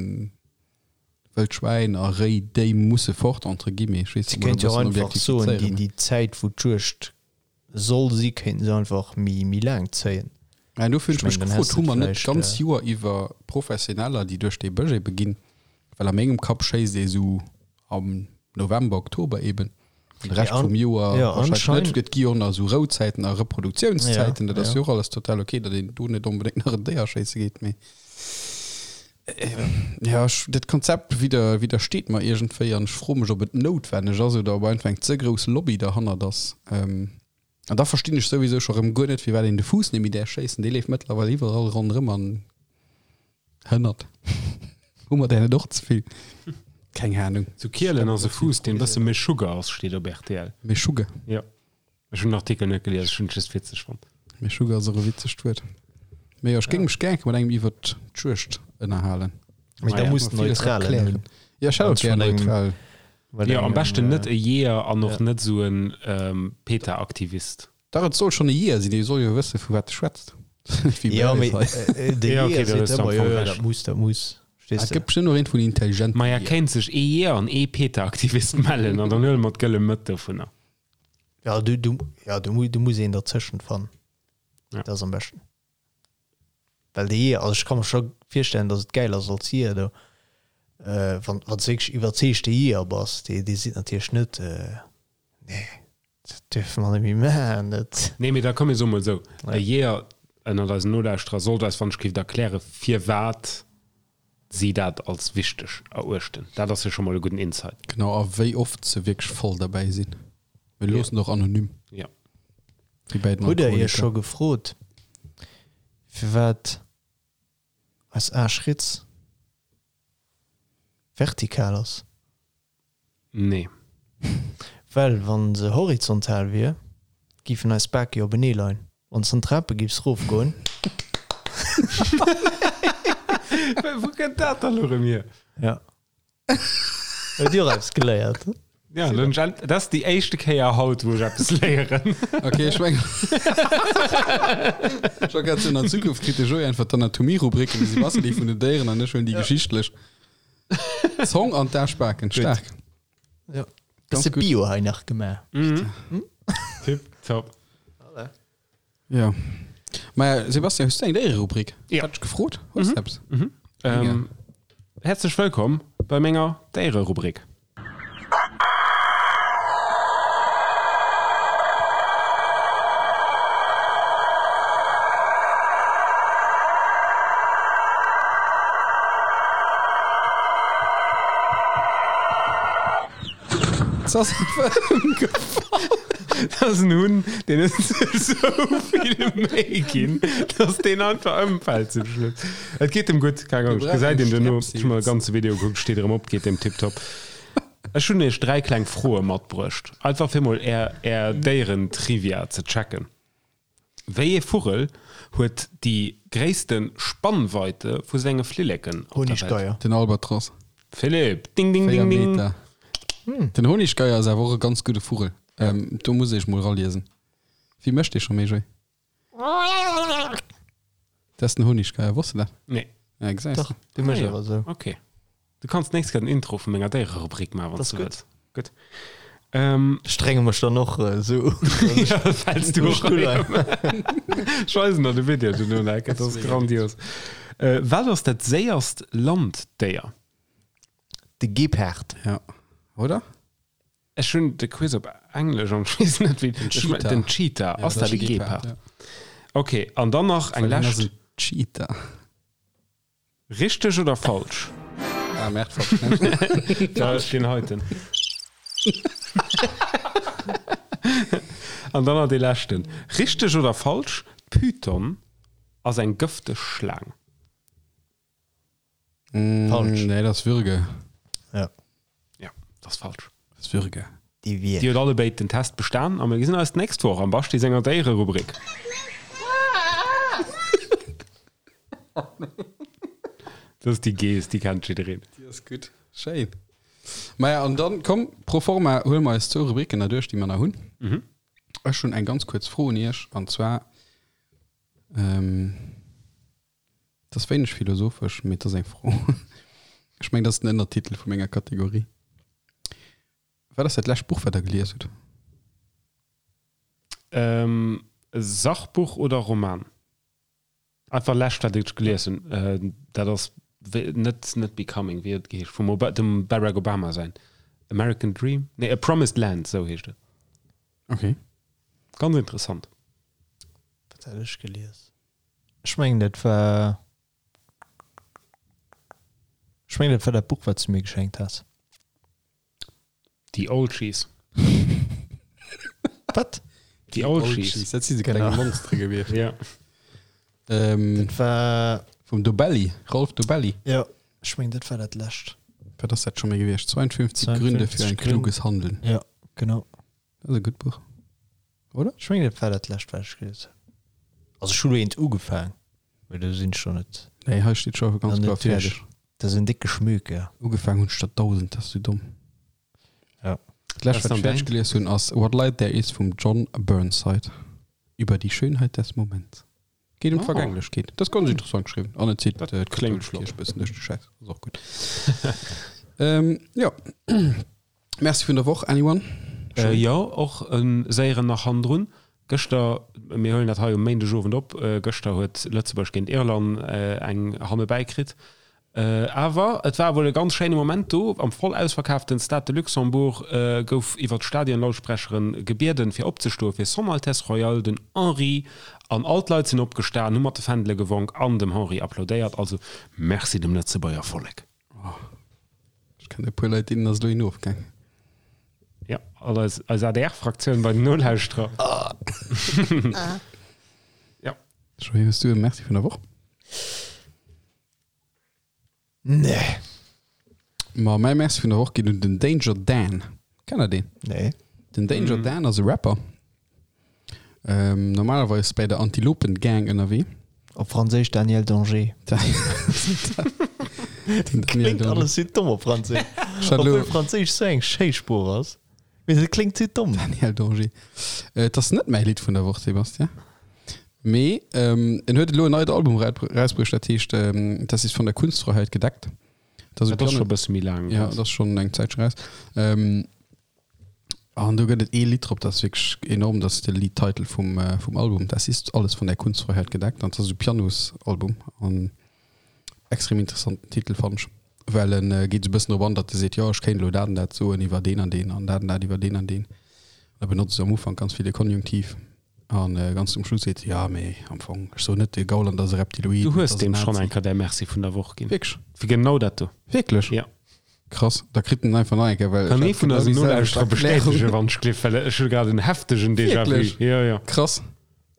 Wëldschwäin a Réi, déi musse fort, entre guillemets? Ech weess Si net, kéint e jo bëssen einfach soen, déi, objektifizéieren. déi Zäit, wou d'Juegd soll si, kéinten se einfach méi, méi laang zéien. Mä dofir hunn Ech ech mech mengen, dann gefrot, häss de hu mer net vläicht. d'ganz Joer iwwer Professioneller, déi duerch dee Bësch ebe ginn? Well a mengem Kapp schéisst ee sou am November, Oktober eben. An de Rescht vum Joer ja, wahrscheinlech net. Et gi jo och nach esou Rouzäiten a Reproduktiounszäiten. Ja, Dat ass ja. jo och alles total ok, datt een do net onbedéngt nach en Déier schéisse geet. Mee ja, ech, dat Konzept widder, widdersteet mer iergendwéi an ech froe mech, ob et noutwenneg ass oder ob einfach eng ze grouss Lobby derhannert ass. An da verstinn ech souwisou scho rëm guer net, firwat een de Fuuss net méi däerf schéissen. Dee leeft mëttlerweil iwwerall ronderëm an hënnert. Hu mer där net och ze vill? Keng Ahnung. Zu Kielen ass e Fuuss, deen e bësse méi Sugar ass, steet op rtl. Méi Sugar? Jo. Ech hunn den Artikel net gelies, ech hunn et just witzeg fonnt. Méi Sugar ass och e witzegt Wuert. Mee jo, ech géing mech gär mat engem iwwert d'Juegd ënnerhalen. Mee da Ah ja. muss Mer villes neutralen erklären. hunn. Jo, ech hätt och Ganz gär vun engem- neutral. Well Jo, am engem, beschten net äh, e Jeeër an och ja. net esou en PETA-Aktivist. Dach, et soll schonn e Jeeër sinn, dee soll jo wësse vu wat e schwätzt. Wéi Ja, bei mee eis hei. äh, de Ja, okay, Jeeër da seet hues du am ëmmer, jo, Fong jo, Recht. dat muss, dat muss. Ah, Verstees Et de? gëtt bestimmt och een vun intelligenten Maja, Jeeër. kéint sech ee Jeeër an ee PETA-Aktivist mellen an dann huele mer d'gëlle Mëtt dovunner. Ja, du, du, ja, du, du muss een derzëschent fannen. Ja. Dat ass am beschten. Well de Jeeër, also ech ka mer scho virstellen, datt et gäil ass als Jeeër do, wann wann s de wierklech iwwerzeegte Jeeër bass, dee dee seet natierlech net, nee, dat duerfe mer net méi maachen, dat. Nee, mee da komm mir soe mol esou, e Jeeër ënnert eisen Nolauschterer sollt eis wann ech géif erkläre firwat si dat als wichteg eruechten. Dat ass jo scho mol e gudden Insight. Genau, a wéi oft se wierklech voll derbäi sinn. Mir loossen och anonym. Ja. Wéi bei den Hutt der Iech Alkoholiker. scho gefrot, firwat eis Aarschritz vertikal ass? Nee. Well wa se horizontal wier, giffen eis Bake jo openee leien. Wann s an d'Trape giffs rofgoen. Wou kënnt dat dann elo erëm hier? Ja. Huet Dir och eppes geléiert? Ja, dann hunn ech, dat ass déi éischte Kéier haut, wou ech eppes léieren. Ok, ech mengen, ech war grad soen, an Zukunft kritt de Joé einfach d'Anatomie-Rubrik an de Sebastian déi vun den Déieren an ech huelen déi geschichtlech. Zong an d'Aschbaken, staark. Ja. Ganz Bësse gutt. Bio hei nach gemaach. Tipp top. Ja. Maja, Sebastian, hues du eng Déiererubrik? Ja. Hat ech gefrot? Hues du eppes? Ähm, herzlech wëllkomm bei menger Déiererubrik. Se ass einfach ëmgefall. Dat ass en Hunn, deen huet sech sou vill Méi ginn, dass deen einfach ëmfält zum Schluss. Et geet em gutt, keng Angscht. Gesäit een duerno. Ech hu mer e ganze Video gekuckt, steet erëm op, geet em tiptop. Ech hunn iech 3 kleng Froe matbruecht, einfach fir mol är är Déieren-Trivia ze checken. Wéi ee Vugel huet déi gréisste Spannweite vu senge Flilleken op der Welt? Honiggeier. Den Albatros. Philippe, ding ding 4 ding ding. Meter. Den Honiggeier ass awer och e ganz gudde Vugel. Do muss ech mol raliesen. Wéi mécht dee scho méi, Joé? Dat ass den Honiggeier, wosst de dat? Nee. Ja, gesäis Dach, de. dee mécht Ah jo, awer esou. ok. Du kanns d'nächst Kéier den Intro vu menger Déiererubrik maachen, wann Das s du gutt. wëlls. Gutt. Ähm, Strenge mech dann och esou un. ja, fäls du och rein. Ech weisen der de Video duerno nach, dat ass grandios. Äh, wat ass dat séierst Landdéier? De Gepard. Ja. Oder? Ech hunn de Quiz op Englesch an ech weess net wéi den Cheetah. Den Cheetah, ass dat e Gepard? Ja. Ok, an dann nach eng Well hien ass lescht. en Cheetah. Richteg oder falsch? Ah, Merde, falsch. Da ass deen heiten. An dann nach dee leschten. Richteg oder falsch, D'Python ass eng gëfteg Schlaang. Falsch. Nee, dat ass Würge. Ja. Ja, dat ass falsch. Dat ass Würge. Déi Wier. Dir hutt allebéid den Test bestan a mir gesinn eis d'nächst Woch am Basti senger Déiererubrik. Dat ass déi Geess, déi kennt jiddereen. Déi ass gutt. Schéin. Maja, an dann, komm, pro forma huele mer eis zwou Rubriken nach duerch, déi mer nach hunn. Ech hunn eng ganz kuerz Fro un Iech, an zwar, Et ass wéineg philosophesch, mee et ass eng Fro. Ech mengen, dat ass den Ënnertitel vu menger Kategorie. Wat ass dat lescht Buch, wat Der gelies hutt? Ähm, Sachbuch oder Roman? Einfach lescht, wat ech gelies hunn. Dat ass net, net Becoming, wéi huet et geheescht? Vum Oba, dem Barack Obama säin American Dream? Nee, A Promised Land, esou heescht et. Okay. Ganz interessant. Wat hat ech gelies? Ech mengen dat war Ech mengen dat war dat Buch wat s du mir geschenkt has. The Olschies. Wat? The Olschies. Dat si se kleng Monstere gewiescht. Ja. Ähm, Dat war vum Dobelli, Rolf Dobelli. jo ech mengen dat war dat lescht. Wat ass dat scho méi gewiescht? 52 Gründe fir 52 ein Gründe. kluges Handeln. Ja genau. Dat ass e gutt Buch. Oder? Ech mengen dat war dat lescht wat ech gelies hunn. Also ech hu lo eent ugefaang, mee do sinn ech scho net Nee, hei steet scho ganz nach kloer net duerch. fäerdeg. Dat ass en décke Schmöker. Ja. Ugefaang hunn ech der 1000, dat ass sou domm. Ja. Dat lescht, wat ech fäerdeg gelies hunn, ass What Light There Is vum John Burnside. Über die Schönheit des Moments. Geet ëm d'Vergänglechkeet. Dat ass ganz interessant geschriwwen. An et zitt d'katholesch Kierch e bëssen duerch de Schäiss. Ass och gutt. Ähm, jo. Merci vun der Woch, anyone? Jo, och e séieren nach hannendrun. Gëschter, mir huelen dat hei um Méindegowend op, gëschter huet Lëtzebuerg géint Irland eng hannebäi kritt. Awer et war wuel e ganz schéine Moment do. Am voll ausverkaaften Stade de Luxembourg gouf iwwer d'Stadionlautsprecheren gebieden, fir opzestoe fir Son Altesse Royale den Henri. An all d'Leit sinn opgestan, hu mat de Fändele gewonk an dem Henri applaudéiert. Also Merci dem Lëtzebuerger Vollek. Ech kennen e puer Leit, deenen ass elo een ofgaang. Ja, all eis, eis ADR-Fraktioun bei den Nolauschterer. Ja. Joé, hues du e Merci vun der Woch? Nee. Ma mäi Merci vun der Woch geet un den Danger Dan. Kennt der deen? Nee. Den Danger Dan ass e Rapper. Ähm, normalerweis bei der Antilopen Gang ënnerwee. Op Franséisch Daniel Danger. Kléngt alles sou domm op Franséisch. Obwuel Franséisch sou eng schéi Sprooch ass. Mee se kléngt sou domm. Daniel Danger. Äh, et ass net mäi Lidd vun der Woch, Sebastian. Mee ähm, en huet elo en neit Album rausbruecht, dat heescht ähm, Das ist von der Kunstfreiheit gedeckt. Dat ass scho e bësse méi laang. Ja, dat ass schonn eng Zäitche raus. Ähm, An do gëtt et ee Lidd drop, dat ass wierklech enorm, dat ass de Liedtitel vum, vum Album, Das ist alles von der Kunstfreiheit gedeckt. An dat ass esou Pianosalbum an extrem interessanten Titel fannen ech, well en geet esou e bëssen drop an, datt e seet, jo ech kéint elo dat an dat soen iwwer deen an deen an dat an dat iwwer deen an deen. An da benotzt e am Ufank ganz vill de Konjunktiv an ganz zum Schluss seet e, jo mee am Fong, ech soen net, de Gauland ass e Reptiloid, Du mee et hues ass en deem schonn Nazi. eng Kéier däi Merci vun der Woch ginn. Wierklech? Fir genau dat do. Wierklech? Ja. Krass, da kritt en einfach nach eng Kéier, well Kann ech ee hat vun genau eisen déi selwecht Nolauschterer Erklärung. bestätegen, wann ech gleef, well ech hu grad en heftegen Déjà-vu. Wierklech? Jo, jo. Krass.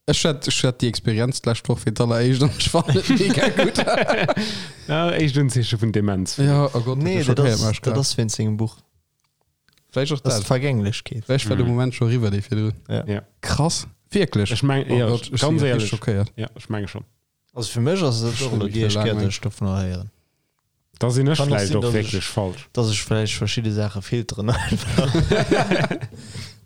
Ech hat, ech hat déi Experienz d'lescht Woch fir d'alleréischt an ech fannen et mega gutt. Ja, éischt Unzeeche vun Demenz. Ja, oh Gott, Nee, dat dat schockéiert ass, mech dat grad. ass wéinst sengem Buch. Vläicht och Dat ass dat. d'Vergänglechkeet. Vläicht war de Moment scho eriwwer, dee virdrun. Ja. Ja. Krass. Wierklech? Ech meng, Oh jo, Gott, ech si ganz grad richteg éierlech. schockéiert. Ja, ech menge schonn. Also fir mech ass et och Schon elo wéi déi éischt laang Kéier, meng. dass ech dovunner héieren. Da sinn ech Kann och vläicht sinn, och dass ech- wierklech falsch. Dass ech vläicht verschidde Saache filteren einfach.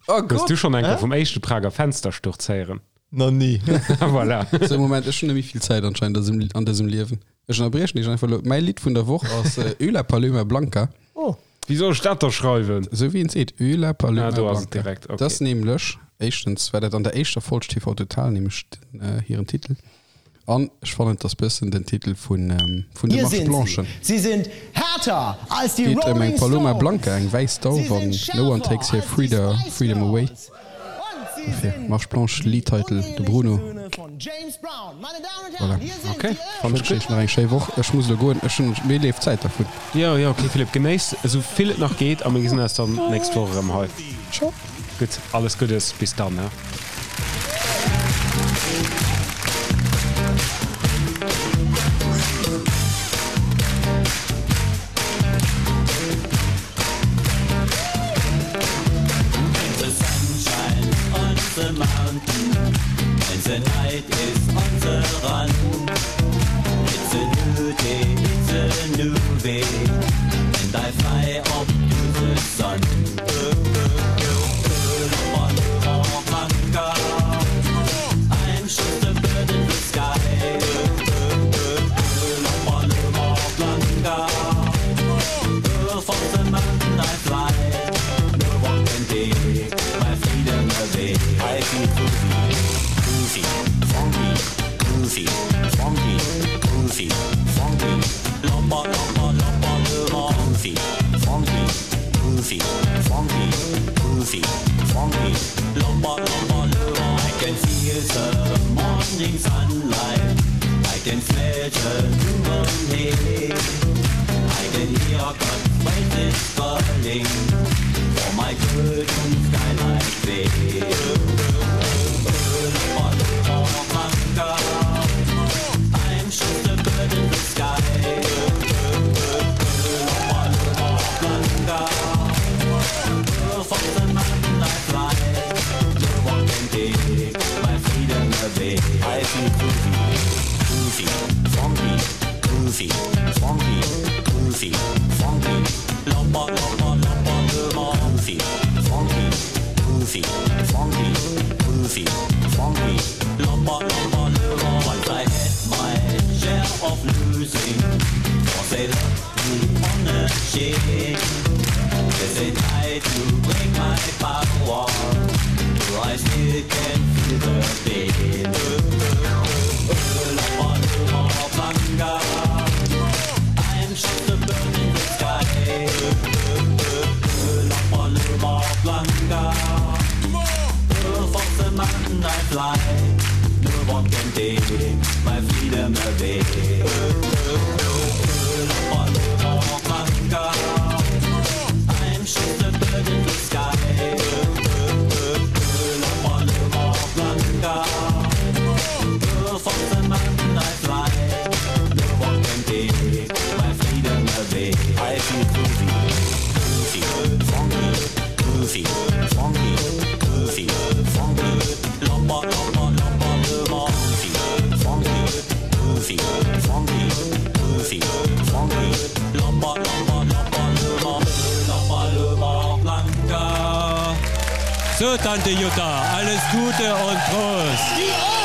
Oh Hues Gott! du schonn eng Kéier Hä? vum éischte Prager Fenstersturz héieren? Nach ni. Voilà. So, Moment, ech hunn net méi vill Zäit anscheinend an dësem, an dësem Liewen. Ech ënnerbriechen dech einfach elo. Mäi Lidd vun der Woch ass Ö la Paloma Blanca. Oh. Wéi soll ech dat da schreiwen? Esou wéi een seet, Ö la Paloma Ah, do ass et Blanca. direkt, okay. Dat ass nämlech, éischtens war dat an der éischter Folg TV Total nämlech den, äh, hiren Titel. An ech fannen, et ass bëssen den Titel vun, vun de Hier Marche sind sie. Blanchen. Sie sind härter als die Geet ëm eng Rolling Paloma Stones. Blanca, eng wäiss Dauf Sie an sind No one schärfer takes her als die freeda, Spice freedom away. Girls. Und sie Dofir, sind Marche Blanche, die Liedtitel, de unehelichen Bruno. Söhne von James Brown. Meine Damen und Voilà. Herren, hier sind Okay, die fand Ech ech wënschen iech nach eng schéi Woch. Ech muss elo goen, ech hunn, mir leeft d'Zäit dervun. Jo, jo, okay, Philippe, genéiss esou vill et nach geet a mir gesinn eis dann d'nächst Woch erëm hei. Ciao. Gutt, alles Guddes, bis dann, ne? So, Tante Jutta, alles Gute und Prost!